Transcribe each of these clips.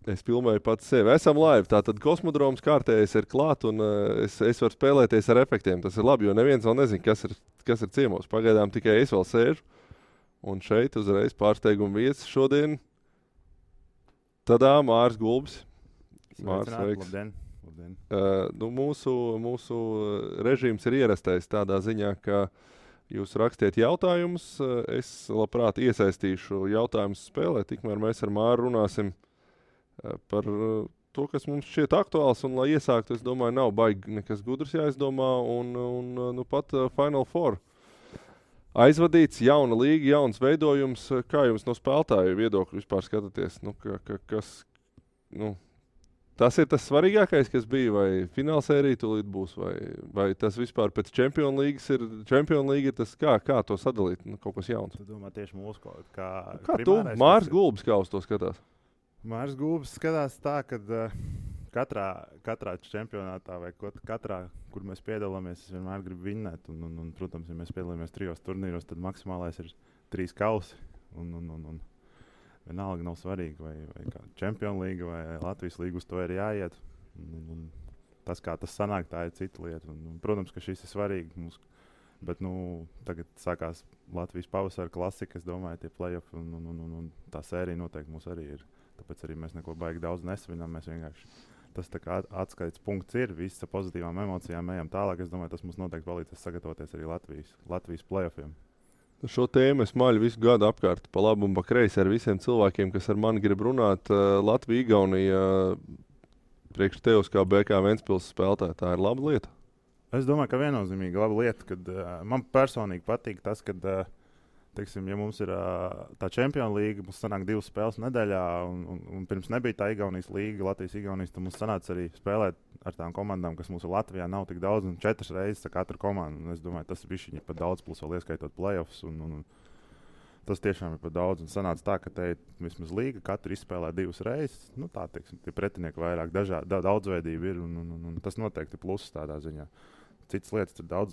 Es filmēju pats sevi. Esam live. Tātad kosmodroms kārtējais ir klāt, un es varu spēlēties ar efektiem. Tas ir labi, jo neviens vēl nezina, kas ir ciemos. Pagaidām tikai es vēl sēžu. Un šeit uzreiz pārsteiguma viesis šodien. Tadā Mārs Gulbis. Mārs, sveiks. Labdien. Mūsu režīms ir ierastais tādā ziņā, ka jūs rakstiet jautājumus. Es labprāt iesaistīšu jautājumus spēlē, tikmēr mēs ar Māru runāsim par to, kas mums šķiet aktuāls, un lai iesāktu, es domāju, nav baigi nekas gudrs jāizdomā, un pat Final Four aizvadīts, jauna līga, jauns veidojums. Kā jums no spēlētāju viedokļu vispār skatāties? Tas ir tas svarīgākais, kas bija, vai finālsērija tūlīt būs, vai tas vispār pēc Champions League ir tas, kā to sadalīt, kaut kas jauns. Tu domā tieši mūsu kaut kā tu, Mārs Gulbis, kā uz to skatās? Mārs Gulbis skatās tā, ka katrā čempionātā vai katrā, kur mēs piedalāmies, es vienmēr gribu vinnēt. Un, protams, ja mēs piedalāmies 3 turnīros, tad maksimālais ir 3 kausi. Un vienalga nav svarīgi, vai Champions League vai Latvijas līga uz to ir jāiet. Un tas, kā tas sanāk, tā ir cita lieta. Un, protams, ka šis ir svarīgi mums. Bet tagad sākās Latvijas pavasara klasika, es domāju, tie play-off un tā sērija noteikti mums arī ir. Tāpēc arī mēs neko baigi daudz nesvinām. Mēs vienkārši tas tā kā atskaites punkts ir. Visi ar pozitīvām emocijām ejam tālāk. Es domāju, tas mums noteikti palīdzēs sagatavoties arī Latvijas play-offiem. Šo tēmu es maļu visu gadu apkārt pa labu un pa kreisi ar visiem cilvēkiem, kas ar mani grib runāt. Latvija, Igaunija, priekš tevis kā BK Ventspils spēlētāja, tā ir laba lieta? Es domāju, ka viennozīmīgi laba lieta. Kad, man personīgi patīk tas, kad teiksim, ja mums ir tā Champions League, mums sanāk 2 spēles nedēļā, un pirms nebija tā Igaunijas līga, Latvijas-Igaunijas, tad mums sanāca arī spēlēt ar tām komandām, kas mums Latvijā nav tik daudz, un 4 reizes katru komandu. Un es domāju, tas ir pat daudz, plus vēl ieskaitot play-offs, un tas tiešām ir pat daudz. Un sanāca tā, ka te vismaz līga katru izspēlē 2 reizes. Tā, teiksim, tie pretinieki vairāk daudzveidība ir, un tas noteikti ir pluss tādā ziņā. Citas lietas, tur daudz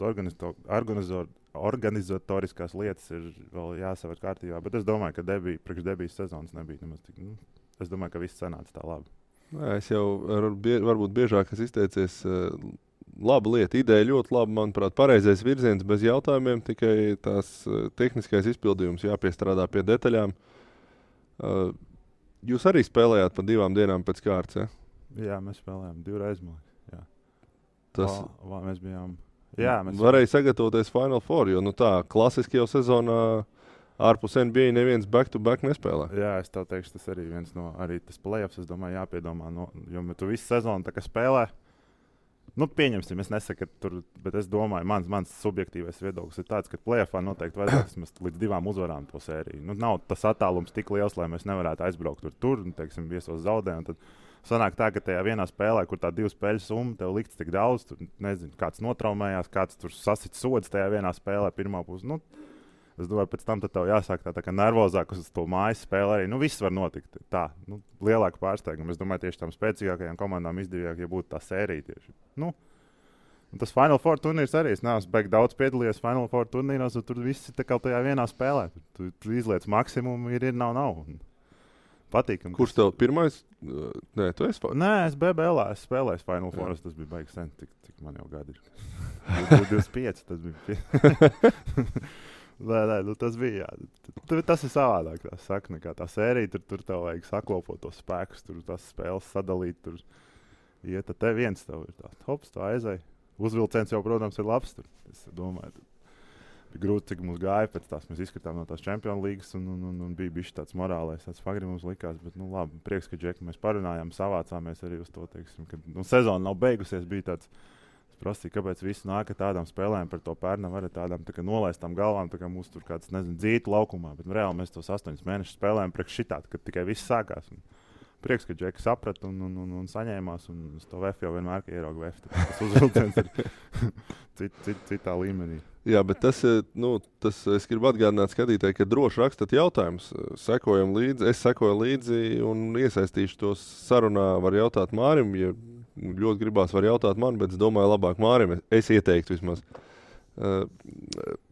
organizatoriskās lietas ir vēl jāsaver kārtībā, bet es domāju, ka priekš debijas sezonas nebija nemaz tik. Es domāju, ka viss sanāca tā labi. Es jau varbūt biežāk izteicies. Laba lieta, ideja ļoti laba, manuprāt, pareizais virziens bez jautājumiem, tikai tās tehniskais izpildījums jāpiestrādā pie detaļām. Jūs arī spēlējāt pa 2 dienām pēc kārtas, ja? Jā, mēs spēlējām 2 reizes. Mēs bijām. Jā, mēs varēja sagatavoties Final Four, jo tā klasiski jau sezonā ārpus NBA neviens back-to-back nespēlē. Jā, es tev teikšu, tas arī viens no arī tas play-offs, es domāju, jāpiedomā. Jo tu visu sezonu tā kā spēlē, pieņemsim, es nesaku, ka tur, bet es domāju, mans subjektīvais viedoklis ir tāds, ka play-offā noteikti vajadzētu līdz 2 uzvarām to sēriju. Nav tas attālums tik liels, lai mēs nevarētu aizbraukt tur, teiksim, viesos zaudējumu. Sanāk tā, ka tajā vienā spēlē, kur tā 2 spēļu summa tev likts tik daudz, tur nezinu, kāds notraumējās, kāds tur sasits sods tajā vienā spēlē pirmā pusē. Es domāju, pēc tam tev jāsāk tā kā nervozāk uz to mājas spēli arī. Viss var notikt tā. Lielāka pārsteiguma. Es domāju, tieši tām spēcīgākajām komandām izdevīgāk, ja būtu tā sērija tieši. Tas Final Four turnīrs arī. Es neesmu baigi daudz piedalījies Final Four turnīros, un tur viss ir kā tajā vienā spēlē. Tu izliec maksimumu, ir nav. Patīkami. Kurš tev pirmais? Nē, tu esi? Nē, es BBL spēlēju Final Four. Tas bija baigi sen, cik man jau gadi ir. 25 tas bija. Nē, tas bija. Tas ir savādāk. Tā saka, nekā tā sērija. Tur tev vajag saklopot tos spēkus, tur tās spēles sadalīt. Tur iet, te viens tev ir tāds. Hops, tā aizēja. Uzvilciens jau, protams, ir labs. Es domāju, bija grūti, cik mums gāja pēc tās. Mēs izskatām no tās Champions Leagues un bija bijis tāds morālais, tāds fagri mums likās. Bet, labi, prieks, ka Džeki mēs parunājām, savācāmies arī uz to, teiksim, ka sezona nav beigusies. Bija tāds, es prasīju, kāpēc visi nāk ar tādām spēlēm par to pērnam, ar tādām tā kā nolaistām galvām, tā kā mūs tur kāds, dzītu laukumā. Bet reāli mēs tos 8 mēnešus spēlējām priekš šitādi, kad tikai viss sākās. Prieks, ka Džeki saprata un saņēmās. Un uz to VF jau vienmēr ierauga VF. Tas uzvilciens ir citā līmenī. Jā, bet tas es gribu atgādināt skatītāji, ka droši rakstat jautājumus. Sekojam līdzi, es sekoju līdzi un iesaistīšu tos sarunā. Var jautāt Mārim, ja ļoti gribās, var jautāt man, bet es domāju labāk Mārim. Es ieteiktu vismaz.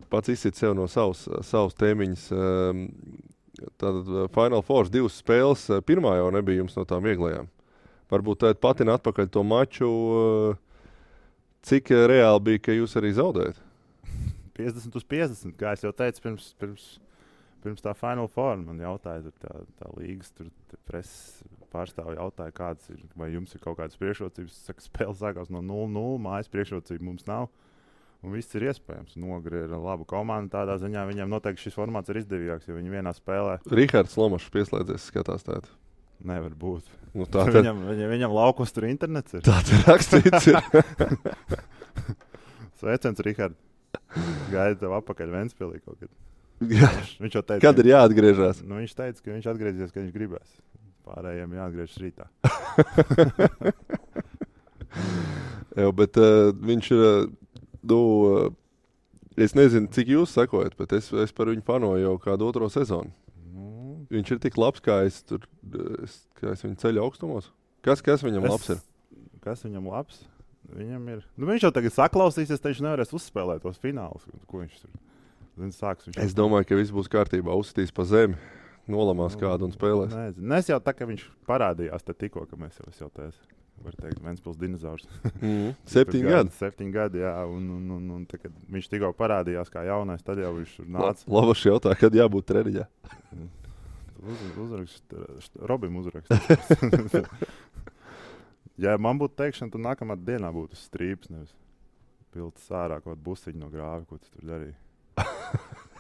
Pats izsit sev no savas tēmiņas. Tātad Final Four 2 spēles. Pirmā jau nebija jums no tām vieglajām. Varbūt tāda patina atpakaļ to maču. Cik reāli bija, ka jūs arī zaudējat? 50-50, kā es jau teicu, pirms tā Final Four man jautāja, tā līgas preses pārstāvja jautāja, kāds ir, vai jums ir kaut kādas priekšrocības. Es saku, spēle sākās no 0-0, mājas priekšrocība mums nav. Un viss ir iespējams. Nogri ir laba komanda. Tādā ziņā viņiem noteikti šis formāts ir izdevīgāks, jo viņi vienā spēlē. Rihards Lomašs pieslēdzies, skatās tādu. Nevar būt. Nu, tā viņam laukos tur internets ir. Tā ir rakstīts. Sveiciens, Rihard. Gaida tev apakaļ Ventspilī kaut kad. Jā. Viņš jau teica, kad ir jāatgriežas? Nu, viņš teica, ka viņš atgriezīsies, kad viņš gribēs. Pārējiem jāatgriežas rītā. Jā, bet viņš ir... es nezinu, cik jūs sekojat, bet es par viņu fanoju jau kādu otro sezonu. Viņš ir tik labs, kā es viņu ceļu augstumos. Kas viņam labs ir? Kas viņam labs? Viņam ir... Nu, viņš jau tagad saklausīsies, te viņš nevarēs uzspēlēt tos finālus. Ko viņš tur... Es domāju, ka viss būs kārtībā. Uzsitīs pa zemi, nolamās kādu un spēlēs. Nezinu. Es jau tā, ka viņš parādījās te tikko, ka mēs jau teicu. Var teikt, Ventspils dinozaurs. 7 gadi. 7 gadi, jā. Un tā, kad viņš tikko parādījās kā jaunais, tad jau viņš nāca. Lavaši jautā, kad jābūt treniņā. Robim uzrakst. Ja man būtu teikšana, tad nākamā dienā būtu strīps, nevis piltas ārā kaut busiņu no grāvi, ko tu tur darīji.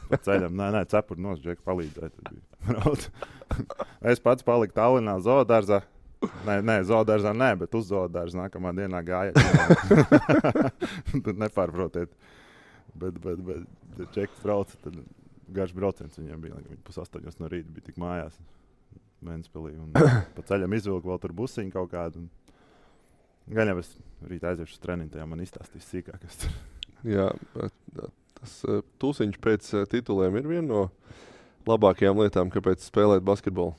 Pa ceļam, cepuri nos, Džeki palīdzēja. Es pats paliku Tallinā zoodārzā. Nē, zoodārzā nē, bet uz zoodārza nākamā dienā gāja. Tad nepārprotiet. Bet Džeki brauca, tad garš brauciens viņiem bija. Viņi 7:30 no rīta bija tik mājās Ventspilī. Un pa ceļam izvilku vēl tur busiņu kaut kādu. Gan jau es rīt aiziešu uz treniņu, tajā man izstāstīs sīkāk. Jā, tas tūsiņš pēc tituliem ir viena no labākajām lietām, kāpēc spēlēt basketbolu.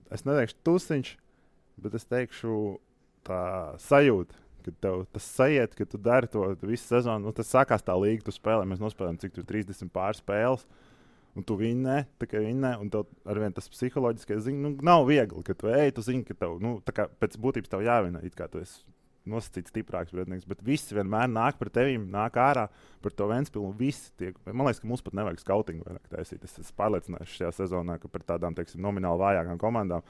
Es neteikšu tūsiņš, bet es teikšu tā sajūta, ka tev tas sajiet, ka tu dari to visu sezonu. Nu, tas sākās tā līga, tu spēlē, mēs nospēlējam cik tur 30 pārspēles. Un tu vinnē, un tev arvien tas psiholoģiskais nav viegli, ka tu ej, tu zini, ka tev, tā kā pēc būtības tev jāvinē, it kā tu esi nosacīts stiprāks pretinieks, bet visi vienmēr nāk par tevīm, nāk ārā par to Ventspilu, un visi tiek, man liekas, ka mums pat nevajag skautingu vairāk taisīt. Es esmu pārliecināts šajā sezonā, ka par tādām, teiksim, nomināli vājākām komandām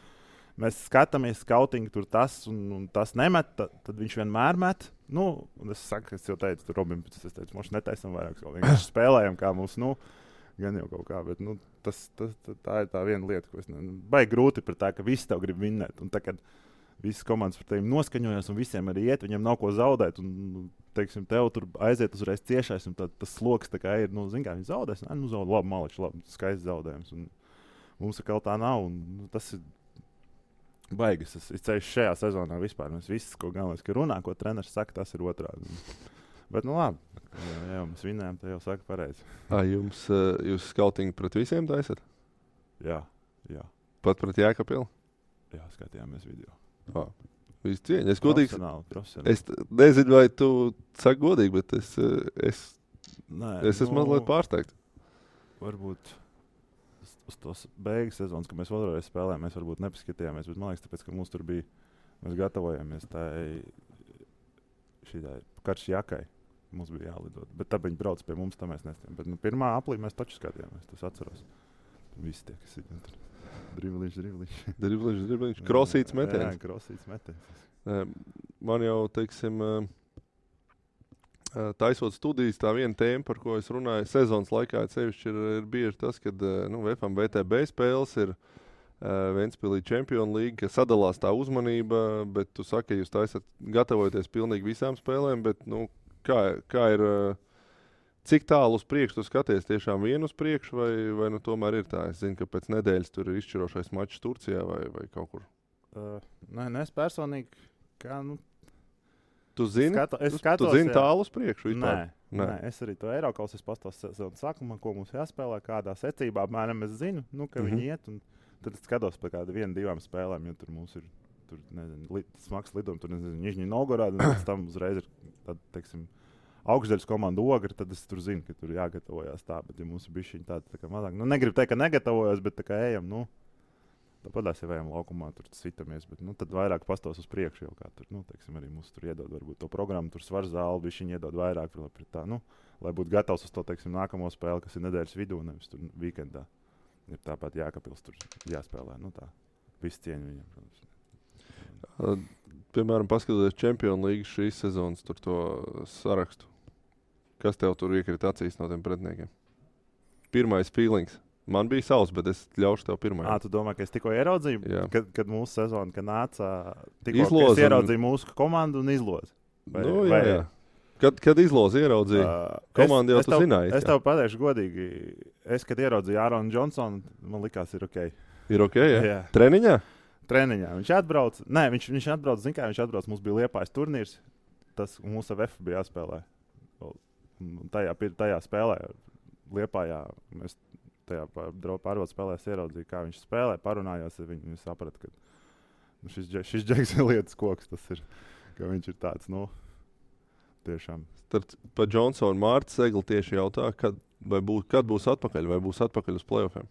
mēs skatāmies skautingu, tur tas un tas nemet, tad viņš vienmēr met. Nu, un es saku, es jau teicu, tur Robim, es teicu, mums netaisam vairāk, vienkārši spēlējam, kā mums, gan jau kaut kā, bet tā ir tā viena lieta, ko es baigi grūti par tā, ka visi tev grib vinnēt. Un tā, kad visas komandas par tevi noskaņojas un visiem arī iet, viņiem nav ko zaudēt. Un, teiksim, tev tur aiziet uzreiz ciešais, un tas sloks tā kā ir, zin kā, viņi zaudēs. Zaudē, labi, maliči, labi, skaists zaudējums. Un mums atkal tā nav, un tas ir baigas. Es ceļš šajā sezonā vispār. Mēs viss, ko galvenais, ka runā, ko treneris saka, tas ir otrādi. Bet, labi. Jā, mēs vinnējām, tā jau saka pareizi. Jūs skautingu pret visiem taisat? Jā. Pat pret Jēkabilu? Jā, skatījāmies video. Visu cieņu. Es godīgi. Profesionāli. Es nezinu, vai tu saki godīgi, bet es esmu mazliet pārsteigts. Varbūt uz tos beigas sezonas, kad mēs vēlreiz spēlējām, mēs varbūt nepaskatījāmies, bet man liekas, tāpēc, ka mums tur bija, mēs gatavojamies šīdai karš jakai. Mums bija jālidot. Bet tā viņi brauc pie mums, tā mēs nestājām. Bet pirmā aplī mēs taču skatījāmies, tas atceros. Visi tie, kas ir tur. Dribliņš. Krosīts metiens. Jā, krosīts metiens. Man jau, teiksim, taisot studijas, tā viena tēma, par ko es runāju sezonas laikā, sevišķi ir bieži tas, kad VFM VTB spēles ir Ventspilī Champions League, ka sadalās tā uzmanība, bet tu saki, ka jūs taisat gatavojaties pilnīgi visām spēlēm, bet, kā ir, cik tālu uz priekšu tu skaties, tiešām vienu uz priekšu, vai tomēr ir tā? Es zinu, ka pēc nedēļas tur ir izšķirošais mačs Turcijā vai kaut kur. Nē, es personīgi, Tu zini? Es skatos, tu zini tālu uz priekšu vispār? Nē, es arī to Eirokaus, es pastos sezonas sākumā, ko mums jāspēlē, kādā secībā, apmēram es zinu, ka viņi iet, un tad es skatos par kādu 1-2 spēlēm, jo tur mums ir smags lidojums, tur Nižņi Novgorodā, un pēc tam uzreiz ir tāda, teiksim, augšdaļas komanda Ogre, tad es tur zinu, ka tur jāgatavojās tā, bet ja mums ir bišķiņ tā kā mazāk. Nu, negribu teikt, ka negatavojos, bet tā kā ejam, nu, tāpatās jau ejam laukumā, tur sitamies, bet, nu, tad vairāk pastos uz priekšu jau kā tur, nu, teiksim, arī mums tur iedod varbūt to programmu, tur svars zāli, bišķiņ iedod vairāk, pret tā, nu, lai būtu gatavs uz to, teiksim, nākamo spēli, kas ir nedēļas vidū, nevis tur weekendā. Ir tāpat Jākapils tur jāspēlē, nu tā, viss cieņu viņam, protams. Piemēram, paskatoties Champions League šīs sezonas tur to sarakstu. Kas tev tur iekrita acīs no tiem pretiniekiem? Pirmais feelings. Man bija savs, bet es ļaušu tev pirmajam. Tu domā, ka es tikko ieraudzīju, kad mūsu sezona, kad nāca, tikko Izloz es ieraudzīju mūsu komandu un izlozi. Nu, jā. Kad izlozi ieraudzīju, komandu jau tu zināji. Es tev pateikšu godīgi, kad ieraudzīju Āronu Džonsonu, man likās, ir ok. Ir ok, jā? Treniņā? Treniņā. Viņš atbrauc, zin kā, viņš atbrauc, mums bija Liepājas turnīrs, tas mūsu VF bija jāspēlē. Tajā spēlē Liepājā mēs tajā pārvaldes spēlēs ieraudzīju, kā viņš spēlē, parunājās ar viņu, viņš saprata, ka šis Džeks ir lietas koks, tas ir, ka viņš ir tāds, nu, tiešām. Pa Johnsonu Mārta Segli tieši jautā, kad būs atpakaļ, vai būs atpakaļ uz playoffiem?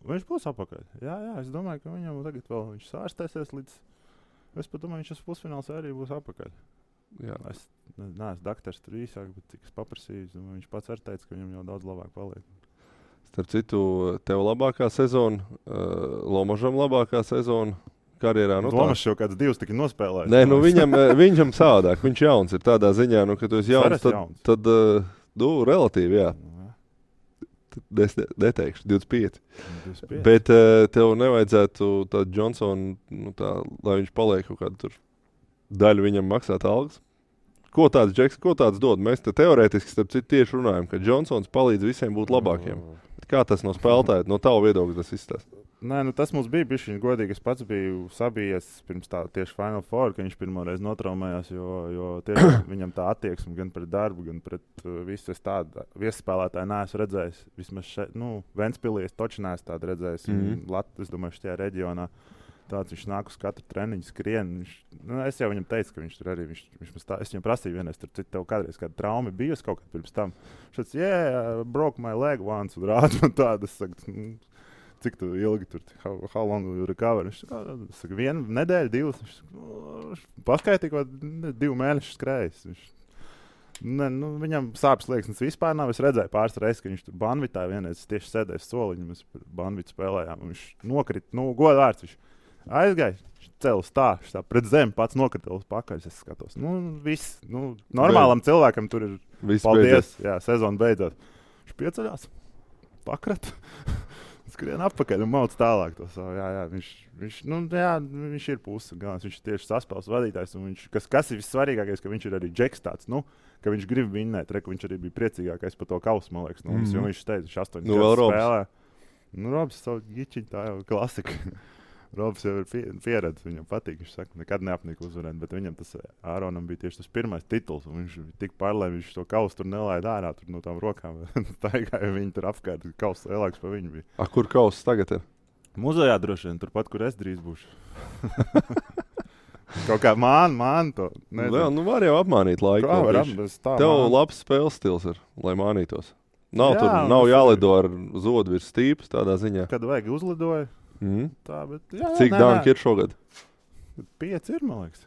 Viņš būs atpakaļ. Jā, es domāju, ka viņam tagad vēl viņš sārstēsies līdz, es pat domāju, viņš uz pusfināls arī būs atpakaļ. Jā. Es neesmu daktars tur īsāk, bet cik es paprasīju, viņš pats arī teica, ka viņam jau daudz labāk paliek. Starp citu, tev labākā sezona, Lomažam labākā sezona karjerā. Nu, Lomažs jau kāds 2 tika nospēlējis. Nē, nu viņam savādāk. Viņš jauns ir tādā ziņā, nu, ka tu esi jauns, tad relatīvi, jā. Es neteikšu, 25. Bet tev nevajadzētu tādu Johnsonu, nu, lai viņš paliek kaut kādu tur daļu viņam maksāt algas. Ko tāds Džeks, ko tāds dod? Mēs te teorētiski starp citu tieši runājam, ka Johnsons palīdz visiem būt labākiem. Kā tas no spēlētāja, no tava viedokļa tas izstāsta? Nē, nu tas mums bija bišķiņ godīgi. Es pats biju sabijies pirms tā tieši Final Four, ka viņš pirmoreiz notraumējās, jo tieši viņam tā attieksme gan pret darbu, gan pret visu es tādu viesspēlētāju neesmu redzējis. Vismaz šeit, nu, Ventspilī es toči neesmu tādu redzējis. Es domāju, šajā reģionā tāds viņš nāk uz katru treniņu, skrien. Es jau viņam teicu, ka viņš tur arī, es viņam prasīju vienreiz, tur tev kādreiz kāda trauma bijusi kaut kad pirms tam. Šāds, broke my leg once, un rāda man tādu, es saku, cik tu ilgi tur, how long will you recover? Viņš saka, 1 nedēļu, 2, viņš paskaitīja, ko 2 mēnešus skrējis. Viņam sāpes liekas vispār nav. Es redzēju pāris reizes, ka viņš tur Banvitā vienreiz tieši sēdēja soliņu, mēs Banvitu spēlējām, un viņš nokrita, godvārds viņš. Aizgāja, cēlus tā pret zemi, pats nokrita uz pakaļ, es skatos. Viss, normālam cilvēkam tur ir viss paldies, jā, sezona beidzot. Viņš pieceļās, pakrat, skrien atpakaļ un mauc tālāk to savu. Viņš ir pusi galvenais, viņš ir tieši saspēles vadītājs, un kas ir vissvarīgākais, ka viņš ir arī Džeks tāds, ka viņš grib vinnēt, ka viņš arī bija priecīgākais par to kausu, man liekas, jo viņš teica, viņš 8 spēlē. Robs savu gičiņu, tā jau klasika. Robs jau ir pieredze, viņam patīk, viņš saka, nekad neapnika uzvarēt, bet viņam tas Āronam bija tieši tas pirmais tituls, un viņš tik pārlēm, viņš to kausu tur nelaida ārā, tur no tām rokām, taigāja viņi tur apkārt, kausu lielāks par viņu bija. Kur kauss tagad ir? Muzejā droši vien, turpat, kur es drīz būšu. Kaut kā māni to. Jā, var jau apmānīt laiku. Tev labs spēles stils ir, lai mānītos. Nav jālido ar zodu virs stīpas tādā ziņā. Kad vajag uzlidoja. Tā, bet, cik danki ir šogad? 5 ir, man liekas.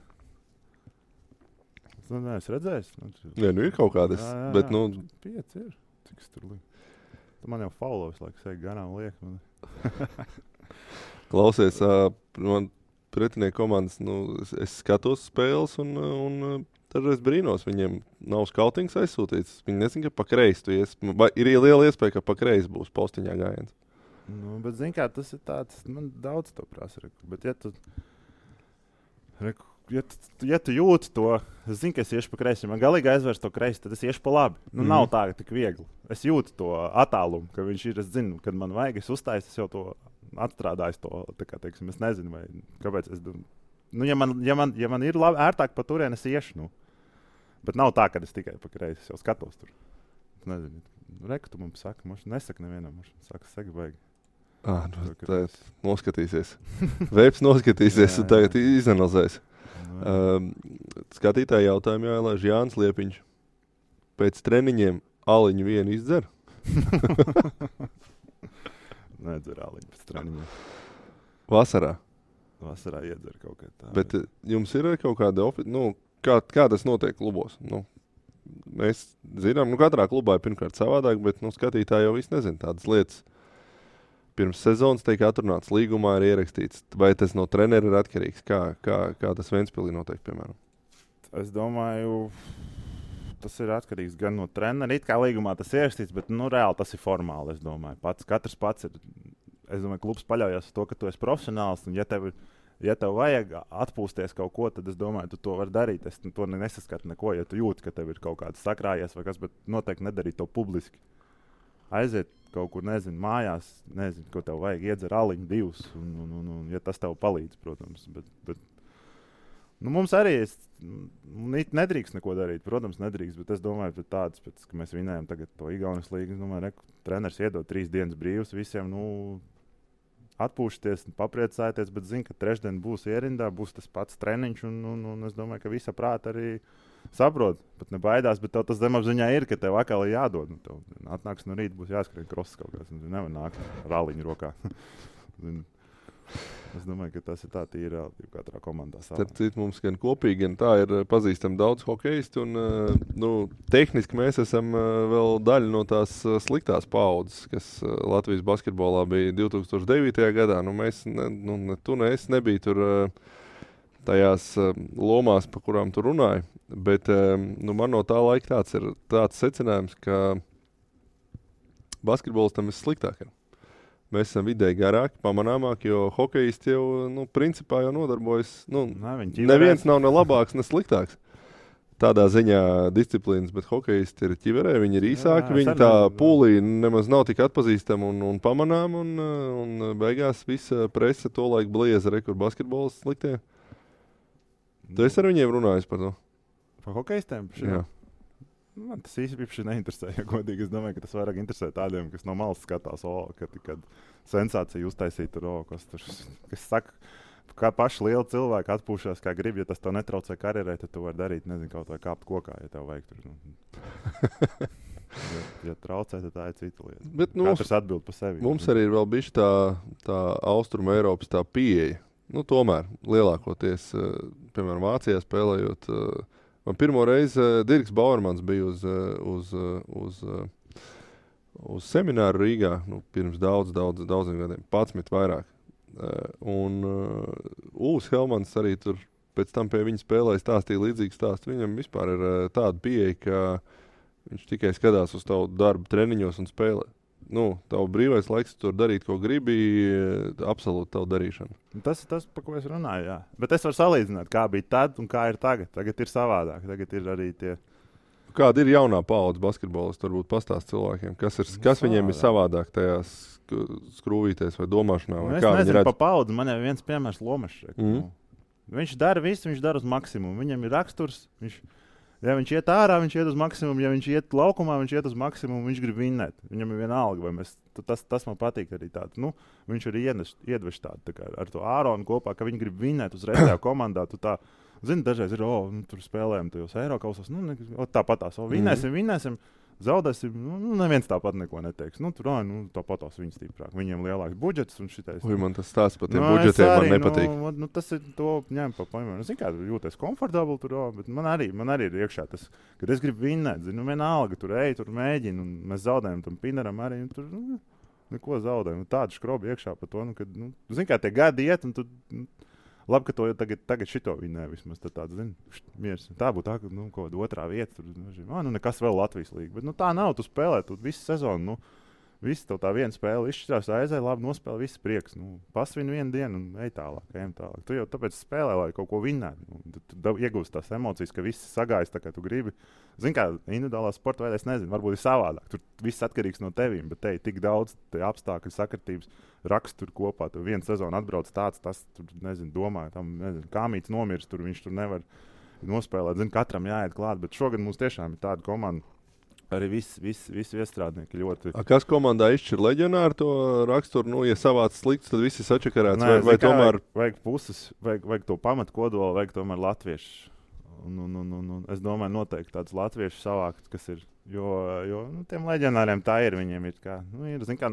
Es neesmu redzējis. Ir kaut kādas, bet 5 ir. Cik es tur lieku? Tu man jau faulo visu laiku sēk garām liek. Klausies, man pretinieku komandas, es skatos spēles un dažreiz brīnos, viņiem nav skautings aizsūtīts. Viņi nezin, ka pa kreisi tu ies. Ir liela iespēja, ka pa kreisi būs postiņā gājiens. Bet, zini kā, tas ir tāds, man daudz to prasa. Bet, ja tu jūti to, es zinu, ka es iešu pa kreisi. Man galīgi aizvērs to kreisi, tad es iešu pa labi. Nav tā, ka tik viegli. Es jūtu to attālumu, ka viņš ir, es zinu, kad man vajag, es uzstāju, es jau to atstrādāju to, tā kā, teiksim, es nezinu, vai kāpēc es domāju. Ja man ir labi, ērtāk pa turien, es iešu, Bet nav tā, ka es tikai pa kreisi, es jau skatos tur. Es nezinu, reku tu man saka, mums nesaka nevienam, mums saka, saka, baigi. Tā noskatīsies. Veips noskatīsies un tagad izanalizēs. Skatītāji jautājumu jāielaiž Jānis Liepiņš. pēc treniņiem aliņu vienu izdzer? Nedzer aliņu pēc treniņiem. Vasarā. Vasarā iedzer kaut kā tā. Bet jums ir kaut kāda kā tas notiek klubos? Mēs zinām, katrā klubā ir pirmkārt savādāk, bet skatītāji jau viss nezina tādas lietas. Pirms sezonas tiek atrunāts līgumā, ir ierakstīts. Vai tas no trenera ir atkarīgs? Kā tas Ventspilī notiek, piemēram? Es domāju, tas ir atkarīgs gan no trenera. It kā līgumā tas ir ierakstīts, bet reāli tas ir formāli, es domāju. Katrs pats ir. Es domāju, klubs paļaujas uz to, ka tu esi profesionāls. Un ja tev vajag atpūsties kaut ko, tad es domāju, tu to vari darīt. Es to nesaskatu neko, ja tu jūti, ka tev ir kaut kāds sakrājies vai kas, bet noteikti nedarīt to publiski. Aiziet kaut kur, nezinu, mājās, nezinu, ko tev vajag, iedzer aliņu divus, un ja tas tev palīdz, protams. Bet mums arī nedrīkst neko darīt, protams, nedrīkst, bet es domāju, pēc ka mēs vinējam tagad to Igaunijas līgu, es domāju, treneris iedod 3 dienas brīvs visiem, atpūšties, papriecāties, bet zinu, ka trešdien būs ierindā, būs tas pats treniņš, un es domāju, ka visa prāta arī saprot, pat nebaidās, bet tev tas zemapziņā ir, ka tev atkal ir jādod. Tev atnāks no rīta, būs jāskrien kross kaut kāds, nevar nākt ar aliņu rokā. Es domāju, ka tas ir tā tīra katrā komandā. Starp citu, mums gan kopīgi, gan tā ir pazīstami daudz hokeistu, un tehniski mēs esam vēl daļa no tās sliktās paudzes, kas Latvijas basketbolā bija 2009. gadā. Mēs, tu ne es nebija tur tajās lomās, pa kurām tu runāji, bet man no tā laika tāds secinājums, ka basketbolistam ir sliktāk. Mēs esam vidēji garāki, pamanāmāki, jo hokejisti jau, principā jau nodarbojas. Neviens nav ne labāks, ne sliktāks. Tādā ziņā disciplīnas, bet hokejisti ir ķiverē, viņi ir īsāki, viņi tā pūlī nemaz nav tik atpazīstami un pamanām, un beigās visa prese to laiku blieza, kur basketbols sliktie. Tu esi ar viņiem runājis par to? Par hokejistiem? Jā. Man tas īsti neinteresē, ja godīgi. Es domāju, ka tas vairāk interesē tādiem, kas no malas skatās, kad sensācija uztaisīt kas saka, kā paši lieli cilvēki atpūšās, kā grib, ja tas tev netraucē karjerē, tad tu vari darīt, nezinu, kaut vai kāpt kokā, ja tev vajag tur. Ja traucē, tad tā ir cita lieta. Bet katrs atbild par sevi. Mums arī ir vēl bišķi tā Austruma Eiropas tā pieeja. Tomēr lielākoties, piemēram, Vācijā spēlējot, man pirmo reizi Dirks Bauermans bija uz semināru Rīgā, pirms daudziem gadiem, 11 vairāk. Un Ūs Helmans arī tur pēc tam pie viņa spēlēja stāstīja līdzīgu stāstu. Viņam vispār ir tāda pieeja, ka viņš tikai skatās uz tavu darbu treniņos un spēlē. Tavu brīvais laiks tur darīt, ko gribi, absolūti tavu darīšanu. Tas ir tas, par ko es runāju, jā. Bet es varu salīdzināt, kā bija tad un kā ir tagad. Tagad ir savādāk, tagad ir arī tie... Kāda ir jaunā paudze basketbolisti, varbūt pastāst cilvēkiem, kas viņiem ir savādāk tajās skrūvītēs vai domāšanā? Vai es nezinu pa paudzi, man jau viens piemērs Lomašs. Viņš dara visu, viņš dara uz maksimumu. Viņam ir raksturs, ja viņš iet ārā, viņš iet uz maksimumu. Ja viņš iet laukumā, viņš iet uz maksimumu. Viņš grib vinnēt. Viņam ir vienalga, vai tas man patīk arī tādu. Viņš arī iedvež tādu tā kā ar to Āronu kopā, ka viņi grib vinnēt uzreiz tajā komandā. Zini, dažreiz ir, tur spēlējam tajos Eirokausās. Tāpatās, vinnēsim. Zaudēsim, neviens tāpat neko neteiks. Tāpatās viņi stiprāk. Viņiem lielāks budžets un šitais. Man tas stāsts par tiem budžetiem man nepatīk. Tas ir to ņem pa paņemam. Zinu, kā jūties komfortabli tur, bet man arī ir iekšā tas, kad es gribu vinnēt. Zinu, vienalga, tur mēģinu, un mēs zaudējam tam Pineram arī. Tur neko zaudējam. Tādu škrobu iekšā par to, kad, zinu, kā tie gadi iet, un tu... Labi, ka to jau tagad šito vinnē vismaz. Tāds, miers. Tā būtu tā, ka kaut kāda otrā vieta. Tur, nekas vēl Latvijas līga. Bet tā nav. Tu spēlē visu sezonu. Viss tev tā viena spēle izšķirās, aizēja, labi nospēlē, viss prieks. Pasvin vienu dienu un ej tālāk, ejam tālāk. Tu jau tāpēc spēlē, lai kaut ko vinnētu. Tu iegūst tās emocijas, ka viss sagājas tā, kā tu gribi. Zini, kā individuālā sporta veidā, es nezinu, varbūt ir savādāk. Tur viss atkarīgs no tevīm, bet te ir tik daudz apstākļu sakritības, raksturu kopā. Tu vienu sezonu atbrauc tāds, tas, tur, nezinu, domā, tam, nezinu, kāmīts nomirst, tur viņš tur nevar nospēlēt. Zini, katram jāiet klāt, bet šogad mums tiešām ir tāda komanda. Arī visi iestrādnieki ļoti. Kas komandā izšķir leģionāru to raksturu? Ja savāds slikts, tad visi sačakarēts. Vai tomēr... Vajag puses, vajag to pamatu kodolu, vajag tomēr latviešu Un es domāju, noteikti tāds latviešu savākt, kas ir, jo tiem leģionāriem tā ir, viņiem ir kā, zin kā,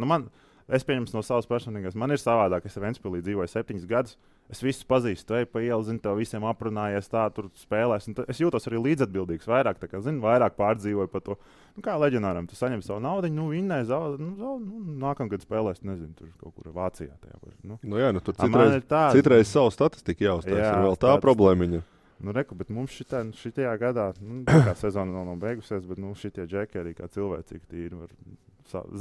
es pieņems no savas personīgās, man ir savādāk, es Ventspilī dzīvoju 7 gadus, es visus pazīstu, ej pa ielu, zinu, tev visiem aprunājies tā, tur spēlēs, un es jūtos arī līdzatbildīgs vairāk, tā kā, zinu, vairāk pārdzīvoju par to, kā leģionāram, tu saņem savu naudiņu, vinnē, nākamgad spēlēs, nezinu, tur kaut kur Vācijā tajā. Tur citreiz savu statistiku jāuztais, ir vēl tā problēmiņa. Reku, bet mums šitajā gadā, kā sezona vēl nav beigusies, bet šitie džeki arī kā cilvēcīgi tīri var,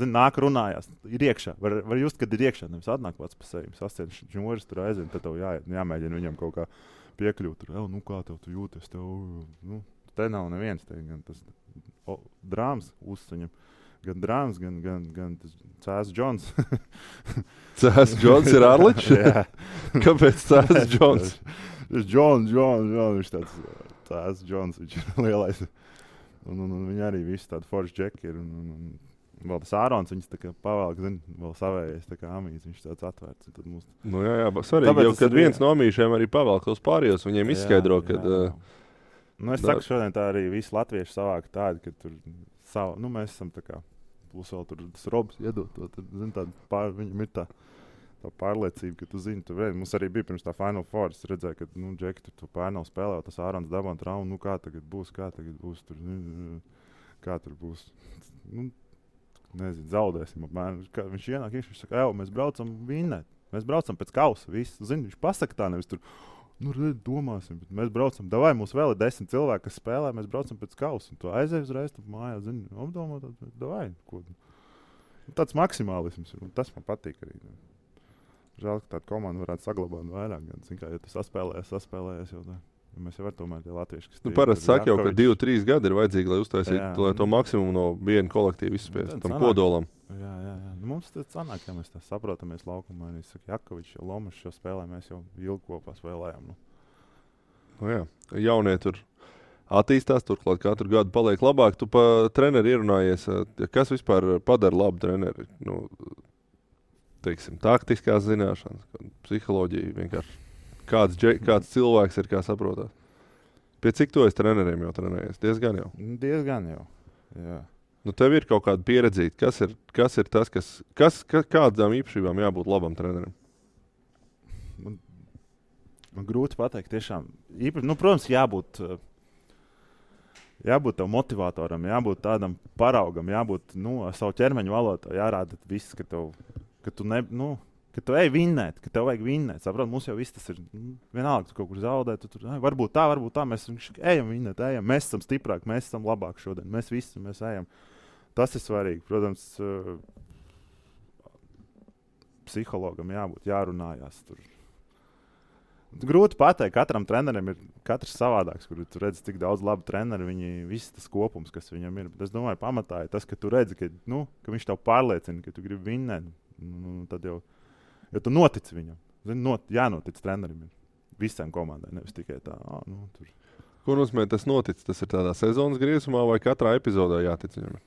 nāk runājās, ir iekšā, var just, kad ir iekšā, nevis atnāk pats pa sevi, sasien žņoris tur aizvien, tad tev jāmēģina viņam kaut kā piekļūt, tur, kā tev tu jūties, te nav neviens, te gan tas drāms uzsaņem, gan drāms, gan tas Cēs Džons. Cēs Džons ir Arličs? Jā. Kāpēc Cēs Džons? Džons, viņš tāds Cēs Džons, viņš ir lielais. Un viņi arī visi tādi forši džeki ir. Un vēl tas Ārons, viņas tā kā pavēlk, vēl savējies, tā kā amīts, viņš tāds atvērts. Tad mums... Jā, svarīgi, jau kad viens no amīšiem arī pavēlk tos pārējos, viņiem izskaidro, kad... es saku, šodien tā arī visi latvieši savāk tādi, ka tur savu, mēs esam tā kā, plus vēl tur tas Robs iedot to, tad, viņam ir tā pārliecība, ka tu zini, mums arī bija pirms tā Final Four, es redzēju, ka, Džeki tur to pārnav spēlē, tas Ārons dabā un traumu, kā tagad būs, tur, kā tur būs, nezinu, zaudēsim apmēram, viņš ienāk, viņš saka, mēs braucam vinnēt, mēs braucam pēc kausa, viss, zini, viņš pasaka tā, nevis tur, domāsim, bet mēs braucam, davai, mums vēl ir 10 cilvēki, kas spēlē, mēs braucam pēc kausa, un tu aizēj uzreiz, tu mājā, zini, apdomā, davai, ko. Tāds maksimālisms ir, un tas man patīk arī. Žēl, ka tāda komanda varētu saglabāt vairāk, gan, zin kā, ja tu saspēlējies jau tā. Mēs jau var tomēr tie latvieši, kas parasti saka jau, ka 2-3 gadi ir vajadzīgi, lai uztaisītu, lai to maksimumu no viena kolektīva izspiest, tam kodolam. Jā. Mums tas sanāk, ja mēs tā saprotamies laukumā, arī saka, Jakovičs, Lomašs šo spēlē, mēs jau ilgi kopā spēlējām. Jaunie tur attīstās, turklāt katru gadu paliek labāk. Tu pa treneri ierunājies, kas vispār padara labu treneri? Teiksim, taktiskās zināšanas, psiholoģija vienkārši. Kāds cilvēks ir, kā saprotās? Pie cik to es treneriem jau trenējies? Diezgan jau. Jā. Tev ir kaut kāda pieredzīta. Kas ir tas, kādām īpašībām jābūt labam trenerim? Man grūti pateikt, tiešām. Protams, jābūt tam motivatoram, jābūt tādam paraugam, jābūt savu ķermeņa valodā, jārāda viss, ka tu ej vinnēt, ka tev vajag vinnēt. Saprot, mums jau viss tas ir vienalga, tu kaut kur zaudē, tu tur, varbūt tā, mēs ejam vinnēt, mēs esam stiprāki, mēs esam labāki šodien, mēs ejam. Tas ir svarīgi, protams, psihologam jārunājās tur. Grūti pateikt, katram trenerim ir katrs savādāks, kur tu redzi tik daudz labu treneru, viņi viss tas kopums, kas viņam ir. Bet es domāju, pamatā ir tas, ka tu redzi, ka viņš tev pārliecina, ka tu gribi vinnēt, tad jau jo tu notici viņam. Jānotic trenerim visām komandai, nevis tikai tā. Tur. Ko nozīmē tas noticis? Tas ir tādā sezonas griezumā vai katrā epizodē jātic viņam?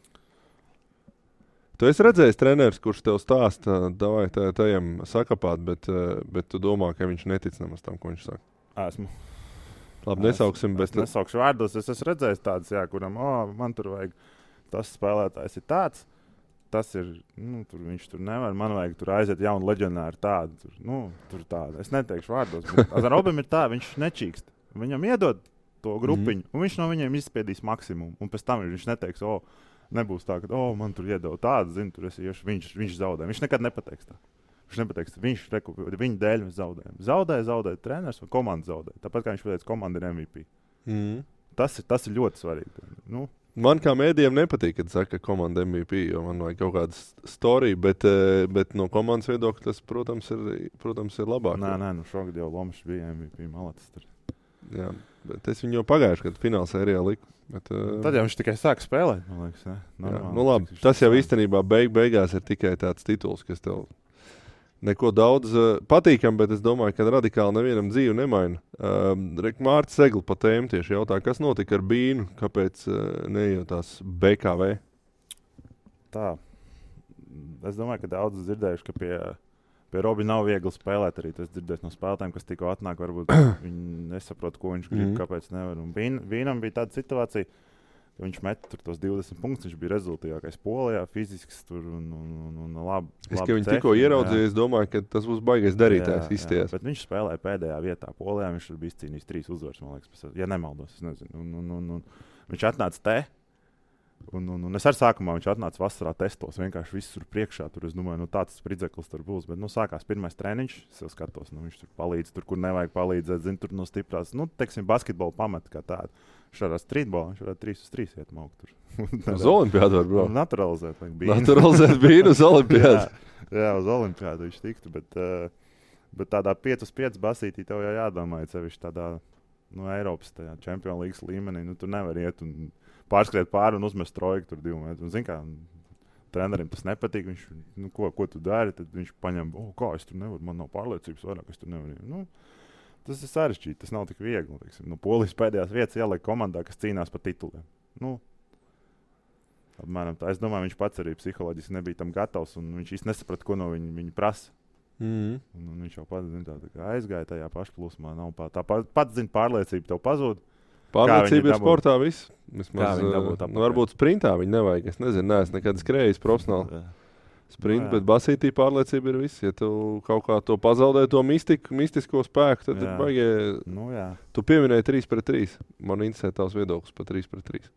Tu esi redzējis treneris, kurš tev stāsta, davai tajam sakapāt, bet tu domā, ka viņš netic nemaz tam, ko viņš saka? Esmu. Labi, nesauksim, bet... Es nesaukšu vārdos, es esmu redzējis tāds, kuram, man tur vajag, tas spēlētājs ir tāds, tas ir, viņš tur nevar, man vajag tur aiziet jaunu leģionāru tādu, tur tādu. Es neteikšu vārdos, bet Robim ir tā, viņš nečīkst. Viņam iedod to grupiņu, un viņš no viņiem izspiedīs maksimumu, un pēc tam viņš neteiks, nebūs tā, ka, man tur iedod tādu, tur es iešu, viņš zaudē. Viņš nekad nepateiks tā. Viņš nepateiks, viņa dēļ mēs zaudējam. Zaudē treneris vai komanda zaudē. Tāpat kā viņš pateica, komanda ir MVP. Tas ir ļoti svarīgi. Man kā mēdījiem nepatīk, kad saka komanda MVP, jo man vajag kaut kāda storija, bet no komandas viedokļa tas, protams, ir labāk. Nē, šogad jau Lomašs bija MVP, malacis tur. Jā, bet es viņu jau pagājuši, kad finālsērijā liku. Tad jau viņš tikai sāk spēlēt, man liekas, ne? Jā, labi, tas jau īstenībā beigās ir tikai tāds tituls, kas tev neko daudz patīkam, bet es domāju, ka radikāli nevienam dzīvi nemaina. Mārts Segli pa tēmu tieši jautā, kas notika ar Bīnu, kāpēc neiejotās BKV? Tā. Es domāju, ka daudz dzirdējuši, ka Pie Robi nav viegli spēlēt arī. Tas dzirdēs no spēlētājiem, kas tikko atnāk. Varbūt viņi nesaprot, ko viņš grib, kāpēc nevar. Un Vīnam bija tāda situācija, ka viņš met tur tos 20 punktus. Viņš bija rezultātīgākais Polijā, fizisks tur un labi. Es, ka viņi tikko ieraudzīja, es domāju, ka tas būs baigais darītājs izties. Bet viņš spēlēja pēdējā vietā Polijā. Viņš tur bija izcīnījis 3 uzvaras, man liekas, ja nemaldos. Es nezinu. Un viņš atnāca te. Un es arī sākumā viņš atnāca vasarā testos. Vienkārši viss tur priekšā. Tur es domāju, tāds spridzeklis tur būs. Bet sākās pirmais treniņš. Es jau skatos, viņš tur palīdz, tur, kur nevajag palīdzēt. Zinu, tur no stiprās, teiksim, basketbola pamata kā tāda. Viņš varētu streetbolu, viņš varētu 3-3 iet maukt tur. Uz olimpiādu var braukt. Naturalizēt Bīnu uz olimpiādu. jā, uz olimpiādu viņš tiktu. Bet tādā 5-5 basītī tev jau jādomā, ja sevišķi tādā Eiropas Champions League līmenī. Tur nevar iet un pārskriet pāri un uzmest trojku tur 2 metrus. Zini, kā trenerim tas nepatīk. Viņš, ko tu dari? Tad viņš paņem, kā es tur nevaru, man nav pārliecības vairāk, es tur nevaru. Tas ir sarežģīti, tas nav tik viegli. Polijas pēdējās vietas ielika komandā, kas cīnās par tituliem. Apmēram tā. Es domāju, viņš pats arī psiholoģiski nebija tam gatavs, un viņš īsti nesaprata, ko no viņa prasa. Un viņš jau pats aizgāja tajā pašplūsmā. Tā pats zina, pārliecība tev pazūd. Pārliecība ir sportā viss. Varbūt sprintā viņa nevajag. Es nezinu, neesmu nekad skrējis profesionāli. Sprint, bet basītī pārliecība ir viss. Ja tu kaut kā to pazaudē, to mistisko spēku, tad ir baigie. Tu pieminēji 3-3. Man interesē tavs viedoklis par 3-3.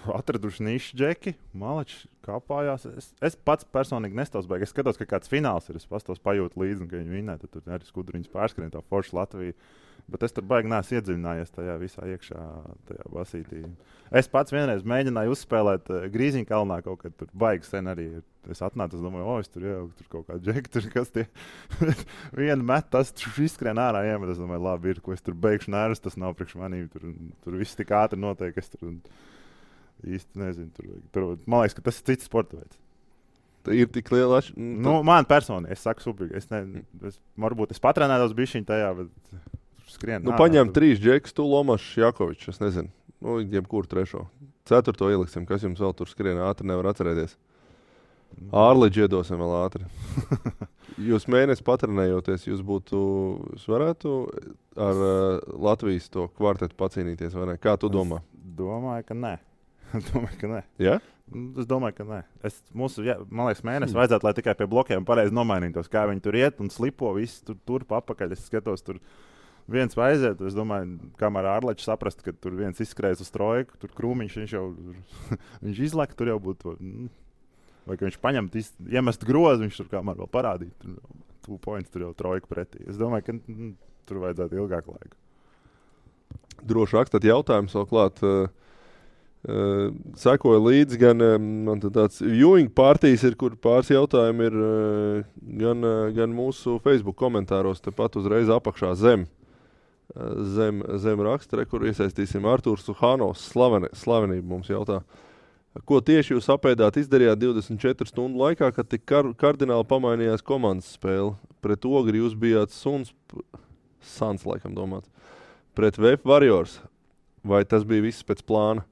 Atraduši nišu džeki, malači kāpājās. Es pats personīgi nestāstu baigi. Es skatos, ka kāds fināls ir. Es pastos pajūtu līdzi, ka viņi vinnē. Tad tur arī skudriņas pārskrien tā forša Latvija. Bet es tur baigi neesmu iedziļinājies tajā visā iekšā, tajā basītī. Es pats vienreiz mēģināju uzspēlēt Grīziņkalnā kaut kad tur baigi sen arī. Es atnācu, es domāju, es tur jau tur kaut kādu džeku, tur kas tie vienu met, tas tur izskrien ārā iemet. Es domāju, labi ir, ko es tur beigšu nervus, tas nav priekš manīm. Tur viss tik ātri notiek, es tur īsti nezinu. Tur, man liekas, ka tas ir cits sporta veids. Tā ir tik liela man personīgi, es saku subīgi. Varbūt es patrenētos bišķiņ tajā, bet skrien. Paņem 3 džekus, tu Lomašs, Jakovičs, es nezinu. Jebkuru 3. 4. ieliksim, kas jums vēl tur skrien ātri, nevar atcerēties. Ārliģi iedosim vēl ātri. Jūs mēnesi patrenējoties, jūs varētu ar Latvijas to kvartetu pacīnīties, vai ne? Kā tu domā? Domāju, ka nē. Ja? Es domāju, ka nē. Man liekas, mēnesi vajadzētu, lai tikai pie blokiem pareizi nomainītos, kā viņi tur iet un slipo, viss tur papakaļ. Es skatos, tur viens vai aiziet. Es domāju, kamēr ārleķis saprast, ka tur viens izskrējas uz trojku, tur krūmiņš, viņš jau viņš izlaka, tur jau būtu. Vai ka viņš paņem, iemest grozu, viņš tur kamēr vēl parādīt. Tur 2 points, tur jau trojku pretī. Es domāju, ka tur vajadzētu ilgāku laiku. Droši rakstāt jautājumus vēl klāt. Sekoja līdzi gan man tāds viewing partijas ir, kur pāris jautājumi ir gan mūsu Facebook komentāros, tepat uzreiz apakšā zem raksta, kur iesaistīsim Artūrs Suhanovs, slavenību mums jautā. Ko tieši jūs apēdāt izdarījāt 24 stundu laikā, kad tik kardināli pamainījās komandas spēle? Pret Ogri jūs bijāt Suns, laikam domāts. Pret VF Warriors. Vai tas bija viss pēc plāna?